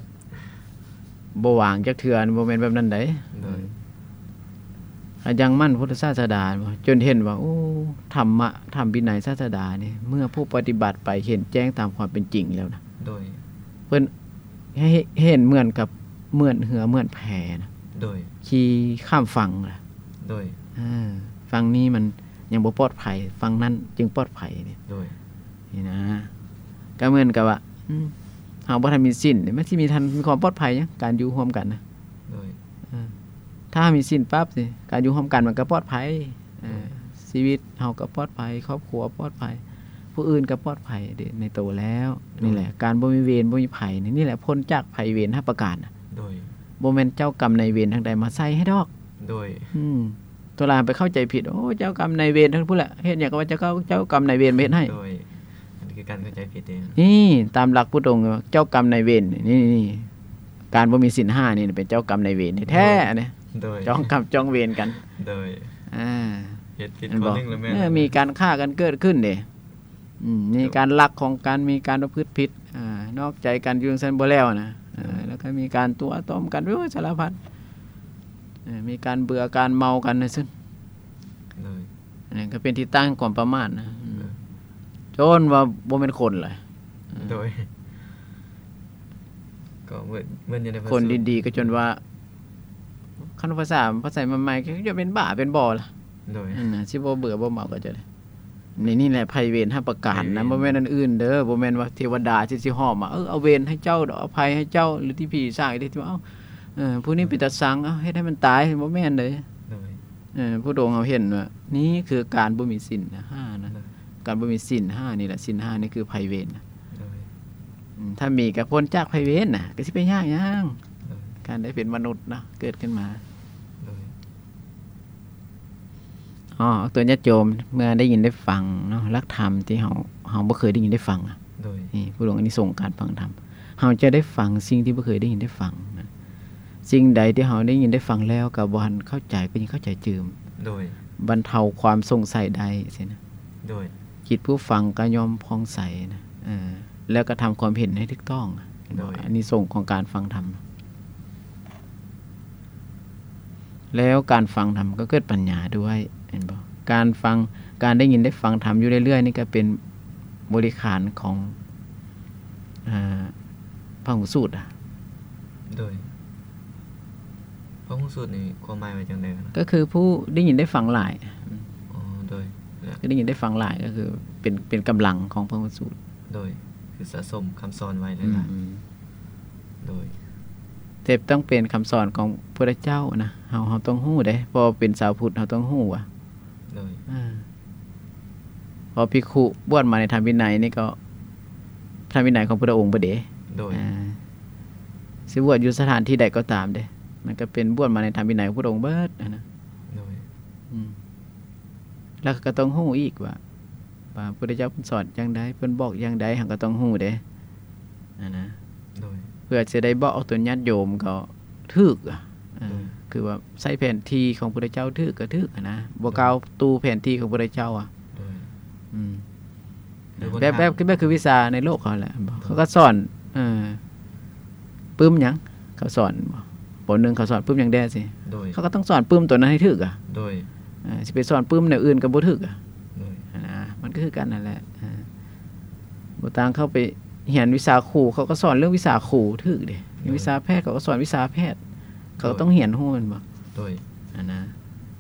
ບໍ່ວາງຈັກເທື່ອ ບໍ່ແມ່ນແບບນັ້ນໃດ໋. ໂດຍ ອືມ ໃຫ້ຢັ້ງໝັ້ນພຸດທະສາສະດາ ຈົນເຫັນວ່າ ໂອ້ ທຳມະ ທຳວິໄນສາສະດານີ້ ເມື່ອຜູ້ປະຕິບັດໄປເຫັນແຈ້ງຕາມຄວາມເປັນຈິງແລ້ວນະ. ໂດຍ ເພິ່ນ ໃຫ້ເຫັນເໝືອນກັບ ເໝືອນເຮືອເໝືອນແພນະ. ໂດຍ ຂີ່ຂ້າມຝັ່ງນະ. ໂດຍ ເອີ ຝັ່ງນີ້ມັນຍັງບໍ່ປອດໄພ ຝັ່ງນັ້ນຈຶ່ງປອດໄພນີ້. ໂດຍ ນີ້ນະ ກໍເໝືອນກັບວ່າ ອືມ ເຮົາບໍ່ທັນມີສິນ ມັນຊິມີທັນ ມີຄວາມປອດໄພຫຍັງ ການຢູ່ຮ່ວມກັນນະ. ໂດຍ ເອີ ຖ້າເຮົາມີສິນປັບນີ້ ການຢູ່ຮ່ວມກັນມັນກໍປອດໄພ. ເອີ ໂດຍ ຊີວິດເຮົາກໍປອດໄພ ຄອບຄົວປອດໄພ ຜູ້ອື່ນກໍປອດໄພເດ້ໃນໂຕແລ້ວ. ໂດຍ ນີ້ແຫຼະ ການບໍ່ມີເວນບໍ່ມີໄພນີ້ ນີ້ແຫຼະ ພົ້ນຈາກໄພເວນຫ້າປະການນະ. ໂດຍ ບໍ່ແມ່ນເຈົ້າກຳນາຍເວນທາງໃດມາໃສ່ໃຫ້ດອກ. ໂດຍ ອືມ ໂຕຫຼາຍໄປເຂົ້າໃຈຜິດ ໂອ້ ເຈົ້າກຳນາຍເວນທັງພຸ້ນແຫຼະ ເຮັດຫຍັງກໍວ່າເຈົ້າ ເຈົ້າກຳນາຍເວນມາເຮັດໃຫ້. ໂດຍ ອັນນີ້ຄືການເຂົ້າໃຈຜິດເດ້. ນີ້ຕາມຫຼັກພຸດອົງ ເຈົ້າກຳນາຍເວນນີ້ ນີ້ ການບໍ່ມີສິນຫ້ານີ້ເປັນເຈົ້າກຳນາຍເວນແທ້ໆ ໂດຍ ອັນນີ້. ໂດຍ ຈອງກຳຈອງເວນກັນ. ໂດຍ ອ່າ ເຮັດຜິດຂໍ້ໜຶ່ງແລ້ວແມ່ນ ເອີ ມີການຂ້າກັນເກີດຂຶ້ນເດ້. ອືມ ມີການລັກຂອງກັນ ມີການປະພຶດຜິດ ອ່າ ນອກໃຈກັນຢູ່ຈັ່ງຊັ້ນບໍ່ແລ້ວນະ. ເອີ ແລ້ວກໍມີການຕົວະຕ້ອມກັນ ໂອ້ຍ ສາລະພັດ ເອີ ມີການເບື່ອການເມົາກັນວ່າຊັ້ນ. ໂດຍ ອັນນັ້ນກໍເປັນທີ່ຕັ້ງຂອງຄວາມປະໝາດນະ. ໂດຍ ຈົນວ່າບໍ່ແມ່ນຄົນເລີຍ. ໂດຍ ກໍເໝືອນ ເໝືອນຢູ່ໃນພະສູດ ຄົນດີໆ ກໍຈົນວ່າ ຄັນພາສາ ພາສາໃໝ່ໆ ກໍຈະເປັນບ້າເປັນບໍ່ລະ. ໂດຍ ນັ້ນນະ ຊິບໍ່ເບື່ອບໍ່ເມົາກໍຈະໄດ້. ນີ້ ນີ້ແຫຼະໄພເວນຫ້າປະການນະ. ໄພເວນ ບໍ່ແມ່ນອັນອື່ນເດີ ບໍ່ແມ່ນວ່າເທວະດາຊິ ຊິຫອມມາ ເອີ ເອົາເວນໃຫ້ເຈົ້າ ເອົາໄພໃຫ້ເຈົ້າ ຫຼືທີ່ຜີສ້າງ ທີ່ວ່າ ເອົາ ເອີ ຜູ້ນີ້ເປັນຕາຊັງ ເອົາ ເຮັດໃຫ້ມັນຕາຍ ບໍ່ແມ່ນເດ້. ໂດຍ ເອີ ພຸດອົງເຮົາເຫັນວ່າ ນີ້ຄືການບໍ່ມີສິນຫ້ານະ. ໂດຍ ການບໍ່ມີສິນຫ້ານີ້ແຫຼະ ສິນຫ້ານີ້ຄືໄພເວນນະ. ໂດຍ ອືມ ຖ້າມີກໍພົ້ນຈາກໄພເວນນະ ກໍຊິໄປຍາກຫຍັງ. ໂດຍ ການໄດ້ເປັນມະນຸດເນາະ ເກີດຂຶ້ນມາ. ໂດຍ ອໍ ໂຕຍາດໂຍມ ເມື່ອໄດ້ຍິນໄດ້ຟັງເນາະ ຫຼັກທຳທີ່ເຮົາ ເຮົາບໍ່ເຄີຍໄດ້ຍິນໄດ້ຟັງ. ໂດຍ ນີ້ ຜູ້ຫຼວງອານິສົງການຟັງທຳ ເຮົາຈະໄດ້ຟັງສິ່ງທີ່ບໍ່ເຄີຍໄດ້ຍິນໄດ້ຟັງນະ. ສິ່ງໃດທີ່ເຮົາໄດ້ຍິນໄດ້ຟັງແລ້ວກໍບໍ່ທັນເຂົ້າໃຈ ກໍຍິ່ງເຂົ້າໃຈຕື່ມ. ໂດຍ ບັນເທົາຄວາມສົງໄສໄດ້ຊີ້ນະ. ໂດຍ ຈິດຜູ້ຟັງກໍຍ່ອມຜ່ອງໃສນະ. ເອີ ແລ້ວກໍທຳຄວາມເຫັນໃຫ້ຖືກຕ້ອງ. ໂດຍ ອານິສົງຂອງການຟັງທຳ ແລ້ວການຟັງທຳກໍເກີດປັນຍາດ້ວຍ ເຫັນບໍ່? ການຟັງ ການໄດ້ຍິນໄດ້ຟັງທຳຢູ່ເລື້ອຍໆນີ້ກໍເປັນບໍລິຂານຂອງ ອ່າ ພະຫຸສູດ. ໂດຍ ພະຫຸສູດນີ້ຄວາມໝາຍວ່າຈັ່ງໃດນະ? ກໍຄືຜູ້ໄດ້ຍິນໄດ້ຟັງຫຼາຍ. ອໍ ໂດຍ ຄືໄດ້ຍິນໄດ້ຟັງຫຼາຍ ກໍຄືເປັນ ເປັນກຳລັງຂອງພະຫຸສູດ. ໂດຍ ຄືສະສົມຄຳສອນໄວ້ຫຼາຍໆ. ອືມ ໂດຍ ແຕ່ຕ້ອງເປັນຄຳສອນຂອງພຸດທະເຈົ້ານະ. ເຮົາ ເຮົາຕ້ອງຮູ້ເດ້ ເພາະເປັນຊາວພຸດ ເຮົາຕ້ອງຮູ້ວ່າ ໂດຍ ເອີ ເພາະພິກຂຸບວດມາໃນທຳວິໄນນີ້ກໍທຳວິໄນຂອງພຸດທະອົງເບິດເດ້. ໂດຍ ເອີ ຊິບວດຢູ່ສະຖານທີ່ໃດກໍຕາມເດ້ ມັນກໍເປັນບວດມາໃນທຳວິໄນຂອງພຸດທະອົງເບິດຫັ້ນນະ. ໂດຍ ອືມ ແລ້ວກໍຕ້ອງຮູ້ອີກວ່າ ວ່າພຸດທະເຈົ້າເພິ່ນສອນຈັ່ງໃດ ເພິ່ນບອກຢ່າງໃດ ເຮົາກໍຕ້ອງຮູ້ເດ້ຫັ້ນນະ. ໂດຍ ພື່ອຈະໄດ້ບອກອອກຕົນຍາດໂຍມກໍຖືກ ອາ ໂດຍ ຄືວ່າໃຊ້ແຜນທີ່ຂອງພຸດທະເຈົ້າຖືກກໍຖືກຫັ້ນນະ ບໍ່ ໂດຍ ກ້າວຕູ້ແຜນທີ່ຂອງພຸດທະເຈົ້າ ອາ ໂດຍ ອືມ ແບບ ແບບ ແບບຄືວິຊາໃນໂລກເຂົາແຫຼະ ໂດຍ ເຂົາກໍສອນ ເອີ ປຶ້ມຫຍັງ ເຂົາສອນບໍ່ ປໍໜຶ່ງເຂົາສອນປຶ້ມຫຍັງແດ່ຊີ້ ໂດຍ ເຂົາກໍຕ້ອງສອນປຶ້ມຕົວນັ້ນໃຫ້ຖືກ ອາ ໂດຍ ເອີ ຊິໄປສອນປຶ້ມແນວອື່ນກໍບໍ່ຖືກ ອາ ໂດຍ ຫັ້ນນະ ມັນກໍຄືກັນນັ້ນແຫຼະ ເອີ ບໍ່ຕ່າງເຂົາໄປຮຽນວິຊາຄູ ເຂົາກໍສອນເລື່ອງວິຊາຄູຖືກເດ້ ໂດຍ ວິຊາແພດ ເຂົາກໍສອນວິຊາແພດ ເຂົາກໍ ໂດຍ ຕ້ອງຮຽນຮູ້ແມ່ນບໍ່ ໂດຍ ຫັ້ນນະ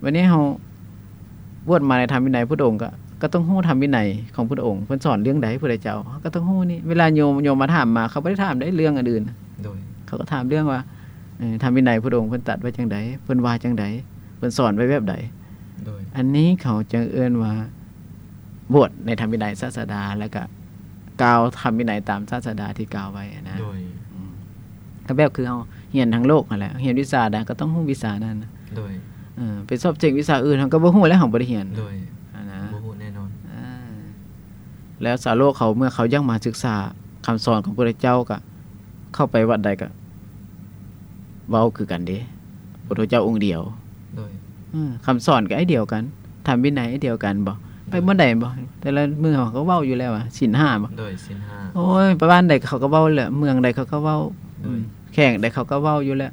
ບັດນີ້ເຮົາ ບວດມາໃນທຳວິໄນພຸດອົງ ກໍ ກໍຕ້ອງຮູ້ທຳວິໄນຂອງພຸດອົງ ເພິ່ນສອນເລື່ອງໃດພຸດທະເຈົ້າ ເຮົາກໍຕ້ອງຮູ້ນີ້ ເວລາໂຍມ ໂຍມມາຖາມມາ ເຂົາບໍ່ໄດ້ຖາມໄດ້ເລື່ອງອັນອື່ນ ໂດຍ ເຂົາກໍຖາມເລື່ອງວ່າ ເອີ ທຳວິໄນພຸດອົງເພິ່ນຕັດໄວ້ຈັ່ງໃດ ເພິ່ນວ່າຈັ່ງໃດ ເພິ່ນສອນໄວ້ແບບໃດ ໂດຍ ອັນນີ້ເຂົາຈຶ່ງເອີ້ນວ່າ ບວດໃນທຳວິໄນສາດສະດາ ແລ້ວກະກ່າວທຳວິໄນຕາມສາດສະດາທີ່ກ່າວໄວ້ນະ ໂດຍ ອືມ ກໍແບບຄືເຮົາຮຽນທາງໂລກຫັ້ນແຫຼະ ຮຽນວິຊາໃດກໍຕ້ອງຮູ້ວິຊານັ້ນ ໂດຍ ເອີ ໄປສອບເສັງວິຊາອື່ນ ເຮົາກໍບໍ່ຮູ້ແລ້ວ ເຮົາບໍ່ໄດ້ຮຽນ ໂດຍ ຫັ້ນນະ ບໍ່ຮູ້ແນ່ນອນ ເອີ ແລ້ວຊາວໂລກເຂົາ ເມື່ອເຂົາຢາກມາສຶກສາຄຳສອນຂອງພະພຸດທະເຈົ້າ ກໍເຂົ້າໄປວັດໃດກໍເວົ້າຄືກັນເດ້ ພະພຸດທະເຈົ້າອົງດຽວ ໂດຍ ເອີ ຄຳສອນກໍອັນດຽວກັນ ທຳວິໄນອັນດຽວກັນບໍ ໂດຍ ໄປບ່ອນໃດບໍ ແຕ່ລະມື້ເຮົາກໍເວົ້າຢູ່ແລ້ວວ່າ ສິນຫ້າບໍ ໂດຍ ສິນຫ້າ ໂອ້ຍ ໄປບ້ານໃດເຂົາກໍເວົ້າແຫຼະ ເມືອງໃດເຂົາກໍເວົ້າ ໂດຍ ອືມ ແຂວງໃດເຂົາກໍເວົ້າຢູ່ແຫຼະ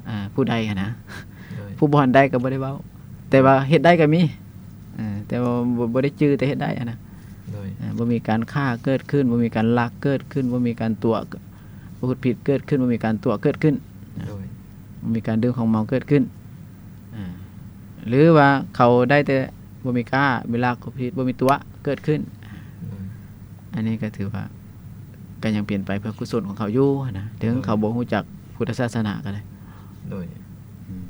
ອາ ຜູ້ໃດຫັ້ນນະ ໂດຍ ຜູ້ບ່ອນໃດກໍບໍ່ໄດ້ເວົ້າ ແຕ່ວ່າເຮັດໄດ້ກໍມີ ເອີ ແຕ່ວ່າບໍ່ ບໍ່ໄດ້ຈື່ ແຕ່ເຮັດໄດ້ຫັ້ນນະ ໂດຍ ເອີ ບໍ່ມີການຂ້າເກີດຂຶ້ນ ບໍ່ມີການລັກເກີດຂຶ້ນ ບໍ່ມີການຕົວະ ປະພຶດຜິດເກີດຂຶ້ນ ບໍ່ມີການຕົວະເກີດຂຶ້ນ ໂດຍ ບໍ່ມີການດື່ມຂອງເມົາເກີດຂຶ້ນ ອາ ຫຼືວ່າເຂົາໄດ້ແຕ່ບໍ່ມີຄ້າ ມີລັກ ປະພຶດຜິດ ບໍ່ມີຕົວະເກີດຂຶ້ນ ໂດຍ ອັນນີ້ກໍຖືວ່າກໍຍັງເປັນໄປເພື່ອກຸສົນຂອງເຂົາຢູ່ຫັ້ນນະ ເຖິງ ໂດຍ ເຂົາບໍ່ຮູ້ຈັກພຸດທະສາສະໜາກໍໄດ້ ໂດຍ ອືມ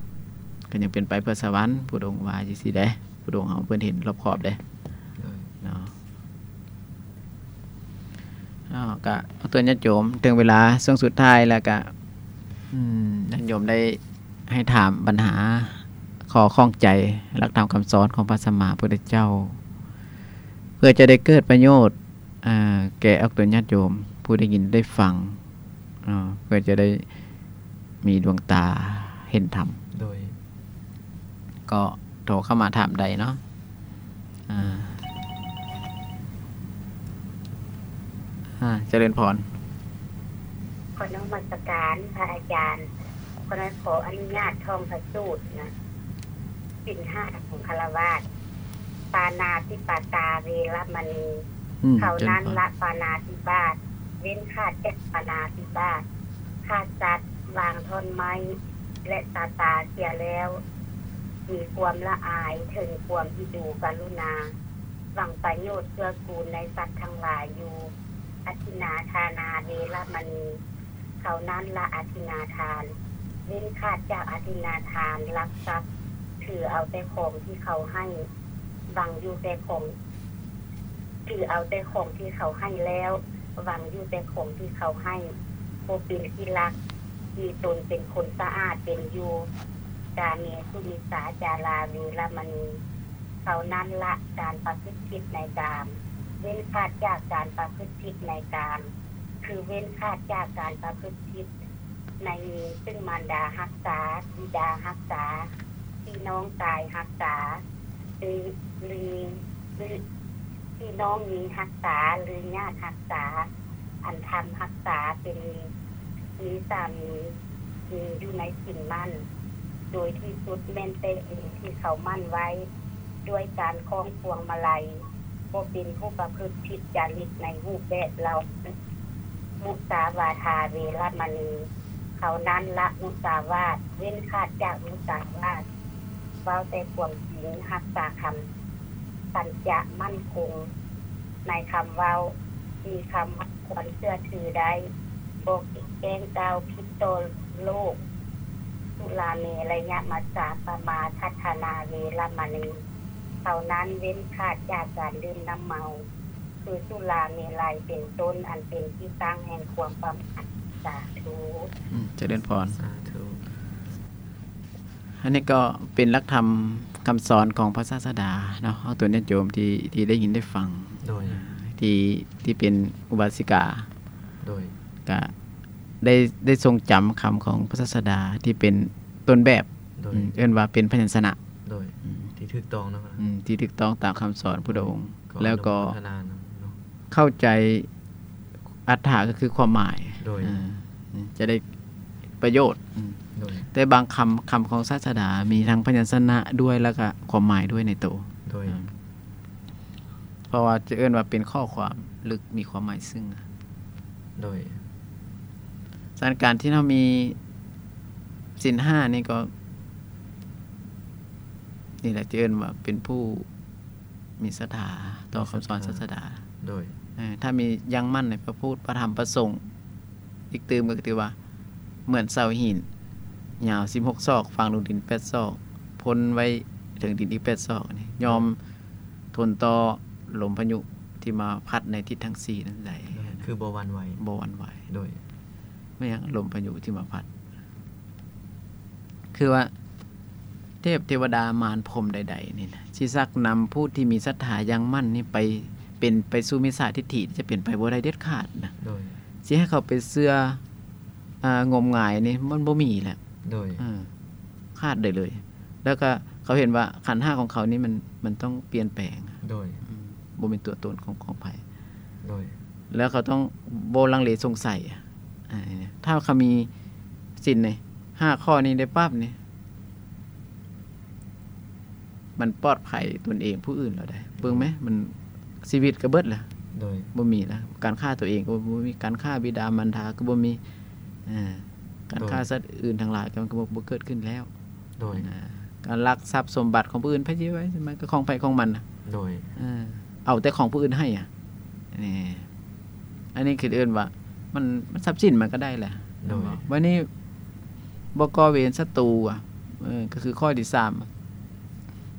ກໍຍັງເປັນໄປເພື່ອສະຫວັນ ພຸດອົງວ່າຈັ່ງຊີ້ເດ້ ພຸດອົງເຮົາເພິ່ນເຫັນຮອບຄອບເດ້ ໂດຍ ເນາະ. ເນາະ ກະເອົາເຕືອນຍາດໂຍມ ເຖິງເວລາຊ່ວງສຸດທ້າຍແລ້ວກະ ອືມ ຍາດໂຍມໄດ້ໃຫ້ຖາມບັນຫາ ຂໍ້ຂ້ອງໃຈ ຫຼັກທຳຄຳສອນຂອງພະສຳມາພຸດທະເຈົ້າ ເພື່ອຈະໄດ້ເກີດປະໂຫຍດ ເອີ ແກ່ອອກຕົນຍາດໂຍມ ຜູ້ໄດ້ຍິນໄດ້ຟັງ ເນາະ ເພື່ອຈະໄດ້ມີດວງຕາເຫັນທຳ ໂດຍ ກໍໂທເຂົ້າມາຖາມໄດ້ເນາະ ອາ ອາ ຈະເລີນພອນ ຂໍນະມັດສະການພະອາຈານ ຂໍ ຂໍອະນຸຍາດທ່ອງພະສູດນະ ສິນຫ້າຂອງຄາລະວາດ ປານາຕິປາຕາເວລະມະນີ ອືມ ເທົ່ານັ້ນລະ ເຈົ້າ ປານາຕິບາດ ເວັ້ນຂາດຈາກປານາຕິບາດ ຂ້າສັດ ວາງທ່ອນໄມ້ ແລະ ຕາຕາເສຍແລ້ວ ມີຄວາມລະອາຍເຖິງຄວາມອິດູກະລຸນາ ຫວັງປະໂຫຍດເກື້ອກູນໃນສັດທັງຫຼາຍຢູ່ ອະທິນນາທານາເວລະມະນີ ເທົ່ານັ້ນລະ ອະທິນນາທານ ເວັ້ນຂາດຈາກອະທິນນາທານລັກຊັບ ຖືເອົາແຕ່ຂອງທີ່ເຂົາໃຫ້ ຫວັງຢູ່ແຕ່ຂອງ ຖືເອົາແຕ່ຂອງທີ່ເຂົາໃຫ້ແລ້ວ ຫວັງຢູ່ແຕ່ຂອງທີ່ເຂົາໃຫ້ ບໍ່ເປັນທີ່ລັກ ມີຕົນເປັນຄົນສະອາດເປັນຢູ່ ກາເມສຸມິດສາຈາລາເວລະມະນີ ເທົ່ານັ້ນລະ ການປະພຶດຜິດໃນກາມ ເວັ້ນຂາດຈາກການປະພຶດຜິດໃນກາມ ຄືເວັ້ນຂາດຈາກການປະພຶດຜິດ ໃນມີ ຊຶ່ງມານດາຮັກສາ, ບິດາຮັກສາ, ພີ່ນ້ອງຊາຍຮັກສາ ຫຼື ຫຼື ພີ່ນ້ອງຍິງຮັກສາ ຫຼື ຍາດຮັກສາ ອັນທຳຮັກສາເປັນມີສາມີ ມີຢູ່ໃນສິນໝັ້ນ ໂດຍທີ່ສຸດແມ່ນແຕ່ເອງທີ່ເຂົາໝັ້ນໄວ້ ດ້ວຍການຄ້ອງພວງມາໄລ ບໍ່ເປັນຜູ້ປະພຶດຜິດຈາລິດໃນຮູບແບບເຫຼົ່າ ມຸສາວາທາເວລະມະນີ ເທົ່ານັ້ນລະ ມຸສາວາດ ເວັ້ນຂາດຈາກມຸສາວາດ ເວົ້າແຕ່ຄວາມຈິງ ຮັກສາຄຳ ສັນຈະໝັ້ນຄົງໃນຄຳເວົ້າ ມີຄຳຄວນເຊື່ອຖືໄດ້ ບໍ່ແກ້ງກ່າວຜິດຕໍ່ໂລກ ສຸລາເມລະຍະມັດສາປະມາທັດຖະນາເວລະມະນີ ເທົ່ານັ້ນ ເວັ້ນຂາດຈາກການດື່ມນ້ຳເມົາ ຄືສຸລາເມໄລເປັນຕົ້ນ ອັນເປັນທີ່ຕັ້ງແຫ່ງຄວາມປະມາດ. ສາທຸ. ອືມ ຈະເລີນພອນ. ສາທຸ. ອັນນີ້ກໍເປັນຫຼັກທຳຄຳສອນຂອງພະສາສະດາເນາະ ເອົາຕົວຍາດໂຍມທີ່ ທີ່ໄດ້ຍິນໄດ້ຟັງ ໂດຍ ທີ່ ທີ່ເປັນອຸບາສິກາ ໂດຍ ກະ ໄດ້ ໄດ້ຊົງຈຳຄຳຂອງພະສາດສະດາທີ່ເປັນຕົ້ນແບບ ໂດຍ ອືມ ເອີ້ນວ່າເປັນພະຍັນຊະນະ ໂດຍ ອືມ ທີ່ຖືກຕ້ອງເນາະ ອືມ ທີ່ຖືກຕ້ອງຕາມຄຳສອນພຸດທະອົງ ແລ້ວກໍເຂົ້າໃຈອັດຖະ ກໍຄືຄວາມໝາຍ ໂດຍ ເອີ ຈະໄດ້ປະໂຫຍດ ອືມ ໂດຍ ແຕ່ບາງຄຳ ຄຳຂອງສາດສະດາ ມີທັງພະຍັນຊະນະດ້ວຍ ແລ້ວກໍຄວາມໝາຍດ້ວຍໃນໂຕ ໂດຍ ອືມ ເພາະວ່າຈະເອີ້ນວ່າເປັນຂໍ້ຄວາມເລິກ ມີຄວາມໝາຍເຊິ່ງ ໂດຍ ສະນັ້ນການທີ່ເຮົາມີສິນຫ້ານີ້ກໍ ນີ້ແຫຼະ ຈະເອີ້ນວ່າເປັນຜູ້ມີສັດທາຕໍ່ຄຳສອນສາດສະດາ ໂດຍ ເອີ ຖ້າມີຢັ້ງໝັ້ນໃນພະພຸດ ພະທຳ ພະສົງ ອີກຕື່ມກໍຖືວ່າເໝືອນເສົາຫີນ ຍາວສິບຫົກສອກ ຝັງລົງດິນແປດສອກ ພົ້ນໄວ້ເທິງດິນອີກແປດສອກນີ້ ຍອມ ໂດຍ ທົນຕໍ່ລົມພາຍຸທີ່ມາພັດໃນທິດທັງສີ່ນັ້ນໄດ້ ໂດຍ ຄືບໍ່ຫວັ່ນໄຫວ ບໍ່ຫວັ່ນໄຫວ ໂດຍ ແມ່ນຫຍັງ ລົມພາຍຸທີ່ມາພັດ ຄືວ່າເທບເທວະດາມານພົມໃດໆນີ້ນະ ຊິຊັກນຳຜູ້ທີ່ມີສັດທາຢ່າງໝັ້ນນີ້ໄປ ເປັນໄປສູ່ມິດສາທິດຖິ ຈະເປັນໄປບໍ່ໄດ້ເດັດຂາດນະ ໂດຍ ຊິໃຫ້ເຂົາໄປເຊື່ອ ອ່າ ງົມງາຍນີ້ມັນບໍ່ມີແລ້ວ ໂດຍ ເອີ ຂາດໄດ້ເລີຍ ແລ້ວກໍເຂົາເຫັນວ່າຂັນຫ້າຂອງເຂົານີ້ມັນ ມັນຕ້ອງປ່ຽນແປງ ໂດຍ ອືມ ບໍ່ແມ່ນຕົວຕົນຂອງ ຂອງໃຜ ໂດຍ ແລ້ວເຂົາຕ້ອງບໍ່ລັງເລສົງໄສ ອ່າ ຖ້າເຂົາມີສິນນີ້ ຫ້າຂໍ້ນີ້ໄດ້ປັບນີ້ ມັນປອດໄພຕົນເອງຜູ້ອື່ນແລ້ວໃດ໋ ເບິ່ງແມ ມັນຊີວິດກໍເບິດແລ້ວ ໂດຍ ບໍ່ມີແລ້ວ ການຂ້າຕົວເອງກໍບໍ່ມີ ການຂ້າບິດາມານດາກໍບໍ່ມີ ເອີ ການຂ້າ ໂດຍ ສັດອື່ນທັງຫຼາຍກໍ ມັນກໍບໍ່ ບໍ່ເກີດຂຶ້ນແລ້ວ ໂດຍ ອ່າ ການລັກຊັບສົມບັດຂອງຜູ້ອື່ນ ໃຜຊິໄວ້ ມັນກໍຂອງໃຜຂອງມັນນະ ໂດຍ ເອີ ເອົາແຕ່ຂອງຜູ້ອື່ນໃຫ້ອະ ນີ້ ອັນນີ້ຄືເອີ້ນວ່າ ມັນ ມັນ ຊັບສິນມັນກໍໄດ້ແຫຼະ ໂດຍ ບັດນີ້ບໍ່ກໍ່ເວນສັດຕູອະ ເອີ ກໍຄືຂໍ້ທີສາມ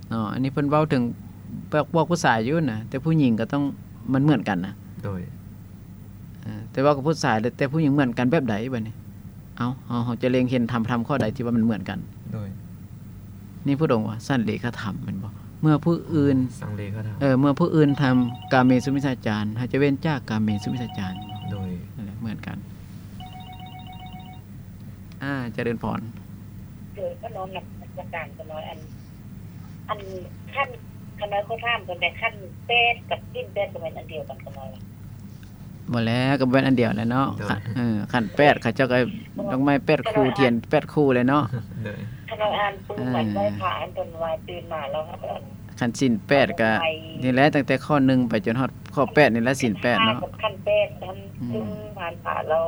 ເນາະ ອັນນີ້ເພິ່ນເວົ້າເຖິງພວກ ພວກຜູ້ຊາຍຢູ່ນະ ແຕ່ຜູ້ຍິງກໍຕ້ອງ ມັນເໝືອນກັນນະ ໂດຍ ເອີ ແຕ່ເວົ້າກັບຜູ້ຊາຍ ແຕ່ຜູ້ຍິງເໝືອນກັນແບບໃດບັດນີ້? ເອົ້າ ເຮົາ ເຮົາຈະເລັງເຫັນທຳ ທຳຂໍ້ໃດທີ່ວ່າມັນເໝືອນກັນ? ໂດຍ ນີ້ພຸດອົງວ່າ ສັນເລຂະທຳ ແມ່ນບໍ່? ເມື່ອຜູ້ອື່ນ ສັນເລຂະທຳ ເອີ ເມື່ອຜູ້ອື່ນທຳກາເມສຸມິດສາຈານ ເຮົາຈະເວັ້ນຈາກກາເມສຸມິດສາຈານ. ໂດຍ ນັ້ນແຫຼະ ເໝືອນກັນ. ອ່າ ຈະເລີນພອນ. ໂດຍ ຂະນ້ອຍນະມັດສະການຂະນ້ອຍ ອັນ ອັນ ຂັ້ນ ຂະນ້ອຍຂໍຖາມເພິ່ນແດ່ ຂັ້ນແປດກັບສິນແປດ ກໍແມ່ນອັນດຽວກັນຂະນ້ອຍ? ບໍ່ແລ້ວ ກໍແມ່ນອັນດຽວແຫຼະເນາະ. ໂດຍ ເອີ ຂັ້ນແປດ ເຂົາເຈົ້າກໍດອກໄມ້ແປດຄູ່ ທຽນແປດຄູ່ແຫຼະເນາະ. ໂດຍ ຂະນ້ອຍອ່ານປຶ້ມ ເອີ ອັນໄຫວ້ພະ ອັນເພິ່ນວ່າຕື່ນມາແລ້ວ ຄັນສິນແປດກໍນີ້ແຫຼະ ຕັ້ງແຕ່ຂໍ້ໜຶ່ງໄປຈົນຮອດຂໍ້ແປດນີ້ແຫຼະ ສິນແປດເນາະ. ຂັ້ນແປດ ອັນ ອືມ ປຶ້ມຜ່ານພະແລ້ວ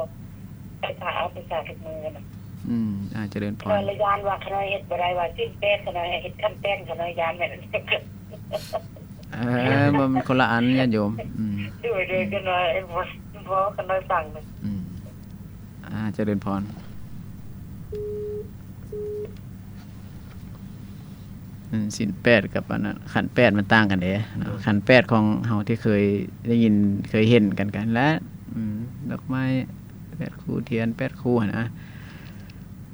ໄຫວ້ພະອາບນ້ຳຊາທຸກມື້ນະ. ອືມ ອາ ຈະເລີນພອນ. ຂ້ານ້ອຍລະຢ້ານວ່າ ຂ້ານ້ອຍເຮັດບໍ່ໄດ້ ວ່າສິນແປດ ຂ້ານ້ອຍເຮັດຂັ້ນແປດ ຂ້ານ້ອຍຢ້ານແມ່ນ ເອີ ມັນຄົນລະອັນ ຍາດໂຍມ. ອືມ ໂດຍ ໂດຍ ອືມ ຂ້ານ້ອຍ ເອີ ເວົ້າ ເວົ້າ ຂ້ານ້ອຍຟັງ. ອືມ ອາ ຈະເລີນພອນ. ອືມ ສິນແປດກັບອັນນັ້ນ ຂັ້ນແປດມັນຕ່າງກັນເດ້ເນາະ. ໂດຍ ຂັ້ນແປດຂອງເຮົາທີ່ເຄີຍໄດ້ຍິນ ເຄີຍເຫັນກັນ ກັນແຫຼະ. ອືມ ດອກໄມ້ແປດຄູ່ ທຽນແປດຄູ່ຫັ້ນນະ.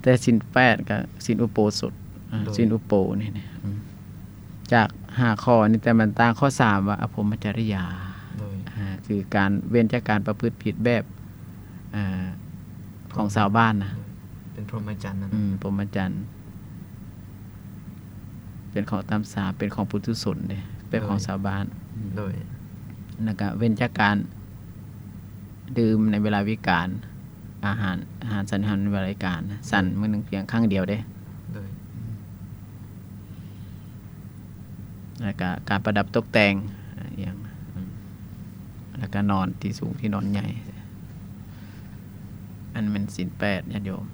ແຕ່ສິນແປດກໍສິນອຸໂບສົດ ໂດຍ ສິນອຸໂບນີ້ນະ ອືມ ຈາກຫ້າຂໍ້ນີ້ ແຕ່ມັນຕ່າງຂໍ້ສາມວ່າອະພົມມະຈະລິຍາ. ໂດຍ ອ່າ ຄືການເວັ້ນຈາກການປະພຶດຜິດແບບ ອ່າ ຂອງຊາວບ້ານນະ. ໂດຍ ເປັນພົມມະຈັນນະ. ອືມ ພົມມະຈັນ ເປັນຂອງຕາມສາ ເປັນຂອງປຸຖຸຊົນເດ້ ແບບຂອງຊາວບ້ານ. ໂດຍ ອືມ ໂດຍ ແລ້ວກະເວັ້ນຈາກການດື່ມໃນເວລາວິການ ອາຫານ ອາຫານສັນອາຫານໃນເວລາວິການ ສັນມື້ໜຶ່ງພຽງຄັ້ງດຽວເດ້. ໂດຍ ອືມ ແລ້ວກະການປະດັບຕົກແຕ່ງ ອາ ອີ່ຫຍັງ ອືມ ແລ້ວກະນອນທີ່ສູງ ທີ່ນອນໃຫຍ່ ອັນແມ່ນສິນແປດ ຍາດໂຍມ.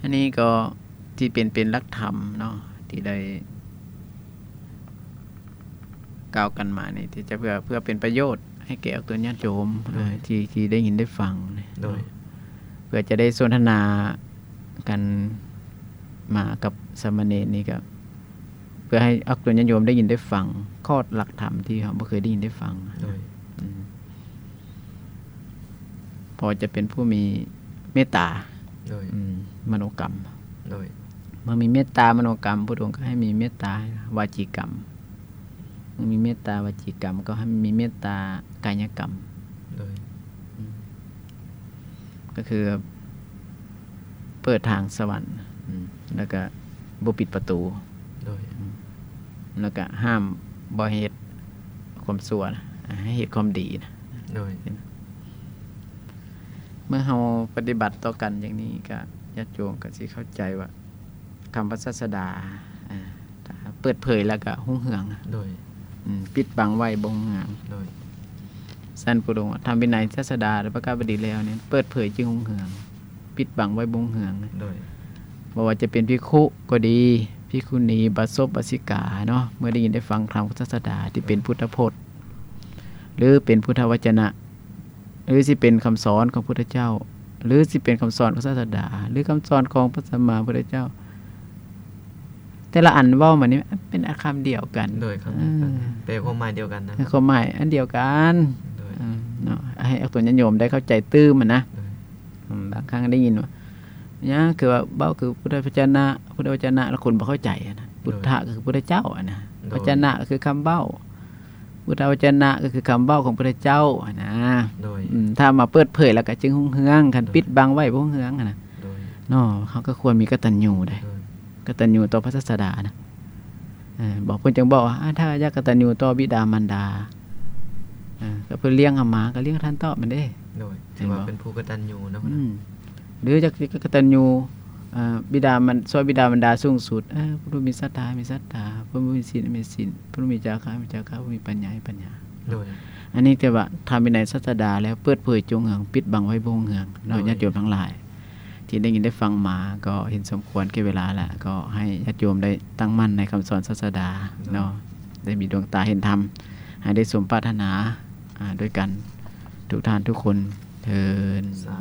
ອັນນີ້ກໍທີ່ເປັນ ເປັນຫຼັກທຳເນາະ ທີ່ໄດ້ກ່າວກັນມານີ້ ທີ່ຈະເພື່ອ ເພື່ອເປັນປະໂຫຍດໃຫ້ແກ່ອອກຕົນຍາດໂຍມ ໂດຍ ທີ່ ທີ່ໄດ້ຍິນໄດ້ຟັງ. ໂດຍ ເພື່ອຈະໄດ້ສົນທະນາກັນມາກັບສາມະເນນນີ້ ກໍເພື່ອໃຫ້ອອກຕົນຍາດໂຍມໄດ້ຍິນໄດ້ຟັງ ຄອດຫຼັກທຳທີ່ເຮົາບໍ່ເຄີຍໄດ້ຍິນໄດ້ຟັງ. ໂດຍ ອືມ ພໍຈະເປັນຜູ້ມີເມດຕາ ໂດຍ ອືມ ມະໂນກຳ. ໂດຍ ເມື່ອມີເມດຕາມະໂນກຳ ພຸດອົງກໍໃຫ້ມີເມດຕາວາຈີກຳ ມີເມດຕາວະຈີກຳ ກໍໃຫ້ມີເມດຕາກາຍະກຳ. ໂດຍ. ອືມ ກໍຄືເປີດທາງສະຫວັນ ອືມ ແລ້ວກໍບໍ່ປິດປະຕູ. ໂດຍ. ອືມ ແລ້ວກໍຫ້າມບໍ່ໃຫ້ເຮັດຄວາມຊົ່ວນະ ໃຫ້ເຮັດຄວາມດີນະ. ໂດຍ. ເມື່ອເຮົາປະຕິບັດຕໍ່ກັນຢ່າງນີ້ ກໍຍາດໂຍມກໍຊິເຂົ້າໃຈວ່າ ຄຳພະສາສະດາ ເອີ ເປີດເຜີຍແລ້ວກໍຮຸ່ງເຮືອງ. ໂດຍ. ອືມ ປິດບັງໄວ້ບໍ່ຮຸ່ງເຮືອງ. ໂດຍ. ຊັ້ນ ພະອົງວ່າ ທຳວິໄນ ສາສະດາ ແລະ ພະກະບະດີແລ້ວນີ້ ເປີດເຜີຍຈຶ່ງຮຸ່ງເຮືອງ, ປິດບັງໄວ້ບໍ່ຮຸ່ງເຮືອງ. ໂດຍ. ບໍ່ວ່າຈະເປັນພິກຂຸກໍດີ, ພິກຂຸນີ, ບາສົບ, ບາສິກາເນາະ, ເມື່ອໄດ້ຍິນໄດ້ຟັງທຳຂອງສາສະດາທີ່ເປັນ ໂດຍ ພຸດທະພົດ ຫຼື ເປັນພຸດທະວະຈະນະ ຫຼືຊິເປັນຄຳສອນຂອງພຸດທະເຈົ້າ ຫຼືຊິເປັນຄຳສອນຂອງສາສະດາ ຫຼືຄຳສອນຂອງພະສຳມາພຸດທະເຈົ້າ ແຕ່ລະອັນເວົ້າມານີ້ເປັນຄຳດຽວກັນ. ໂດຍ. ຄຳດຽວກັນ ເອີ ແປຄວາມໝາຍດຽວກັນນະ ຄວາມໝາຍອັນດຽວກັນ. ໂດຍ. ເອີ ເນາະ ໃຫ້ອອກຕົນຍາດໂຍມໄດ້ເຂົ້າໃຈຕື່ມນະ. ໂດຍ. ອືມ ບາງຄັ້ງໄດ້ຍິນວ່າ ຫຍັງ ຄືວ່າເວົ້າຄືພຸດທະວະຈະນະ ພຸດທະວະຈະນະ ແລ້ວຄົນບໍ່ເຂົ້າໃຈນະ. ໂດຍ. ພຸດທະກໍຄືພຸດທະເຈົ້ານະ. ໂດຍ. ວະຈະນະກໍຄືຄຳເວົ້າ ພຸດທະວະຈະນະກໍຄືຄຳເວົ້າຂອງພຸດທະເຈົ້ານະ. ໂດຍ. ອືມ ຖ້າມາເປີດເຜີຍແລ້ວກໍຈຶ່ງຮຸ່ງເຮືອງ, ຄັນ ໂດຍ ປິດບັງໄວ້ບໍ່ຮຸ່ງເຮືອງນະ. ໂດຍ. ເນາະ ເຮົາກໍຄວນມີກະຕັນຍູໄດ໋. ໂດຍ. ກະຕັນຍູຕໍ່ພະສາສະດານະ. ເອີ ບອກ ເພິ່ນຈຶ່ງບອກວ່າ ອາ ຖ້າຢາກກະຕັນຍູຕໍ່ບິດາມານດາ ເອີ ກໍເພິ່ນລ້ຽງເຮົາມາ ກໍລ້ຽງທ່ານຕອບມັນເດ້. ໂດຍ. ຖືວ່າເປັນຜູ້ກະຕັນຍູເນາະ. ອືມ ຫຼືຢາກກະຕັນຍູ ເອີ ບິດາມັນ ຊ່ອຍບິດາມານດາສູງສຸດ ເອີ ຜູ້ມີສັດທາມີສັດທາ ຜູ້ມີສິນມີສິນ ຜູ້ມີຈາຄະມີຈາຄະ ຜູ້ມີປັນຍາມີປັນຍາ. ໂດຍ. ອັນນີ້ຖືວ່າທຳວິໄນສາສະດາແລ້ວເປີດເຜີຍຈົງເຮືອງ ປິດບັງໄວ້ບໍ່ຮຸ່ງເຮືອງເນາະ. ໂດຍ. ຍາດໂຍມທັງຫຼາຍ ທີ່ໄດ້ຍິນໄດ້ຟັງມາ ກໍເຫັນສົມຄວນແກ່ເວລາແລ້ວ ກໍໃຫ້ຍາດໂຍມໄດ້ຕັ້ງໝັ້ນໃນຄຳສອນສາສະດາ ໂດຍ ເນາະ ໄດ້ມີດວງຕາເຫັນທຳ ໃຫ້ໄດ້ສົມປາດຖະໜາ ອາ ດ້ວຍກັນທຸກທ່ານທຸກຄົນເທີ້ນ. ສາ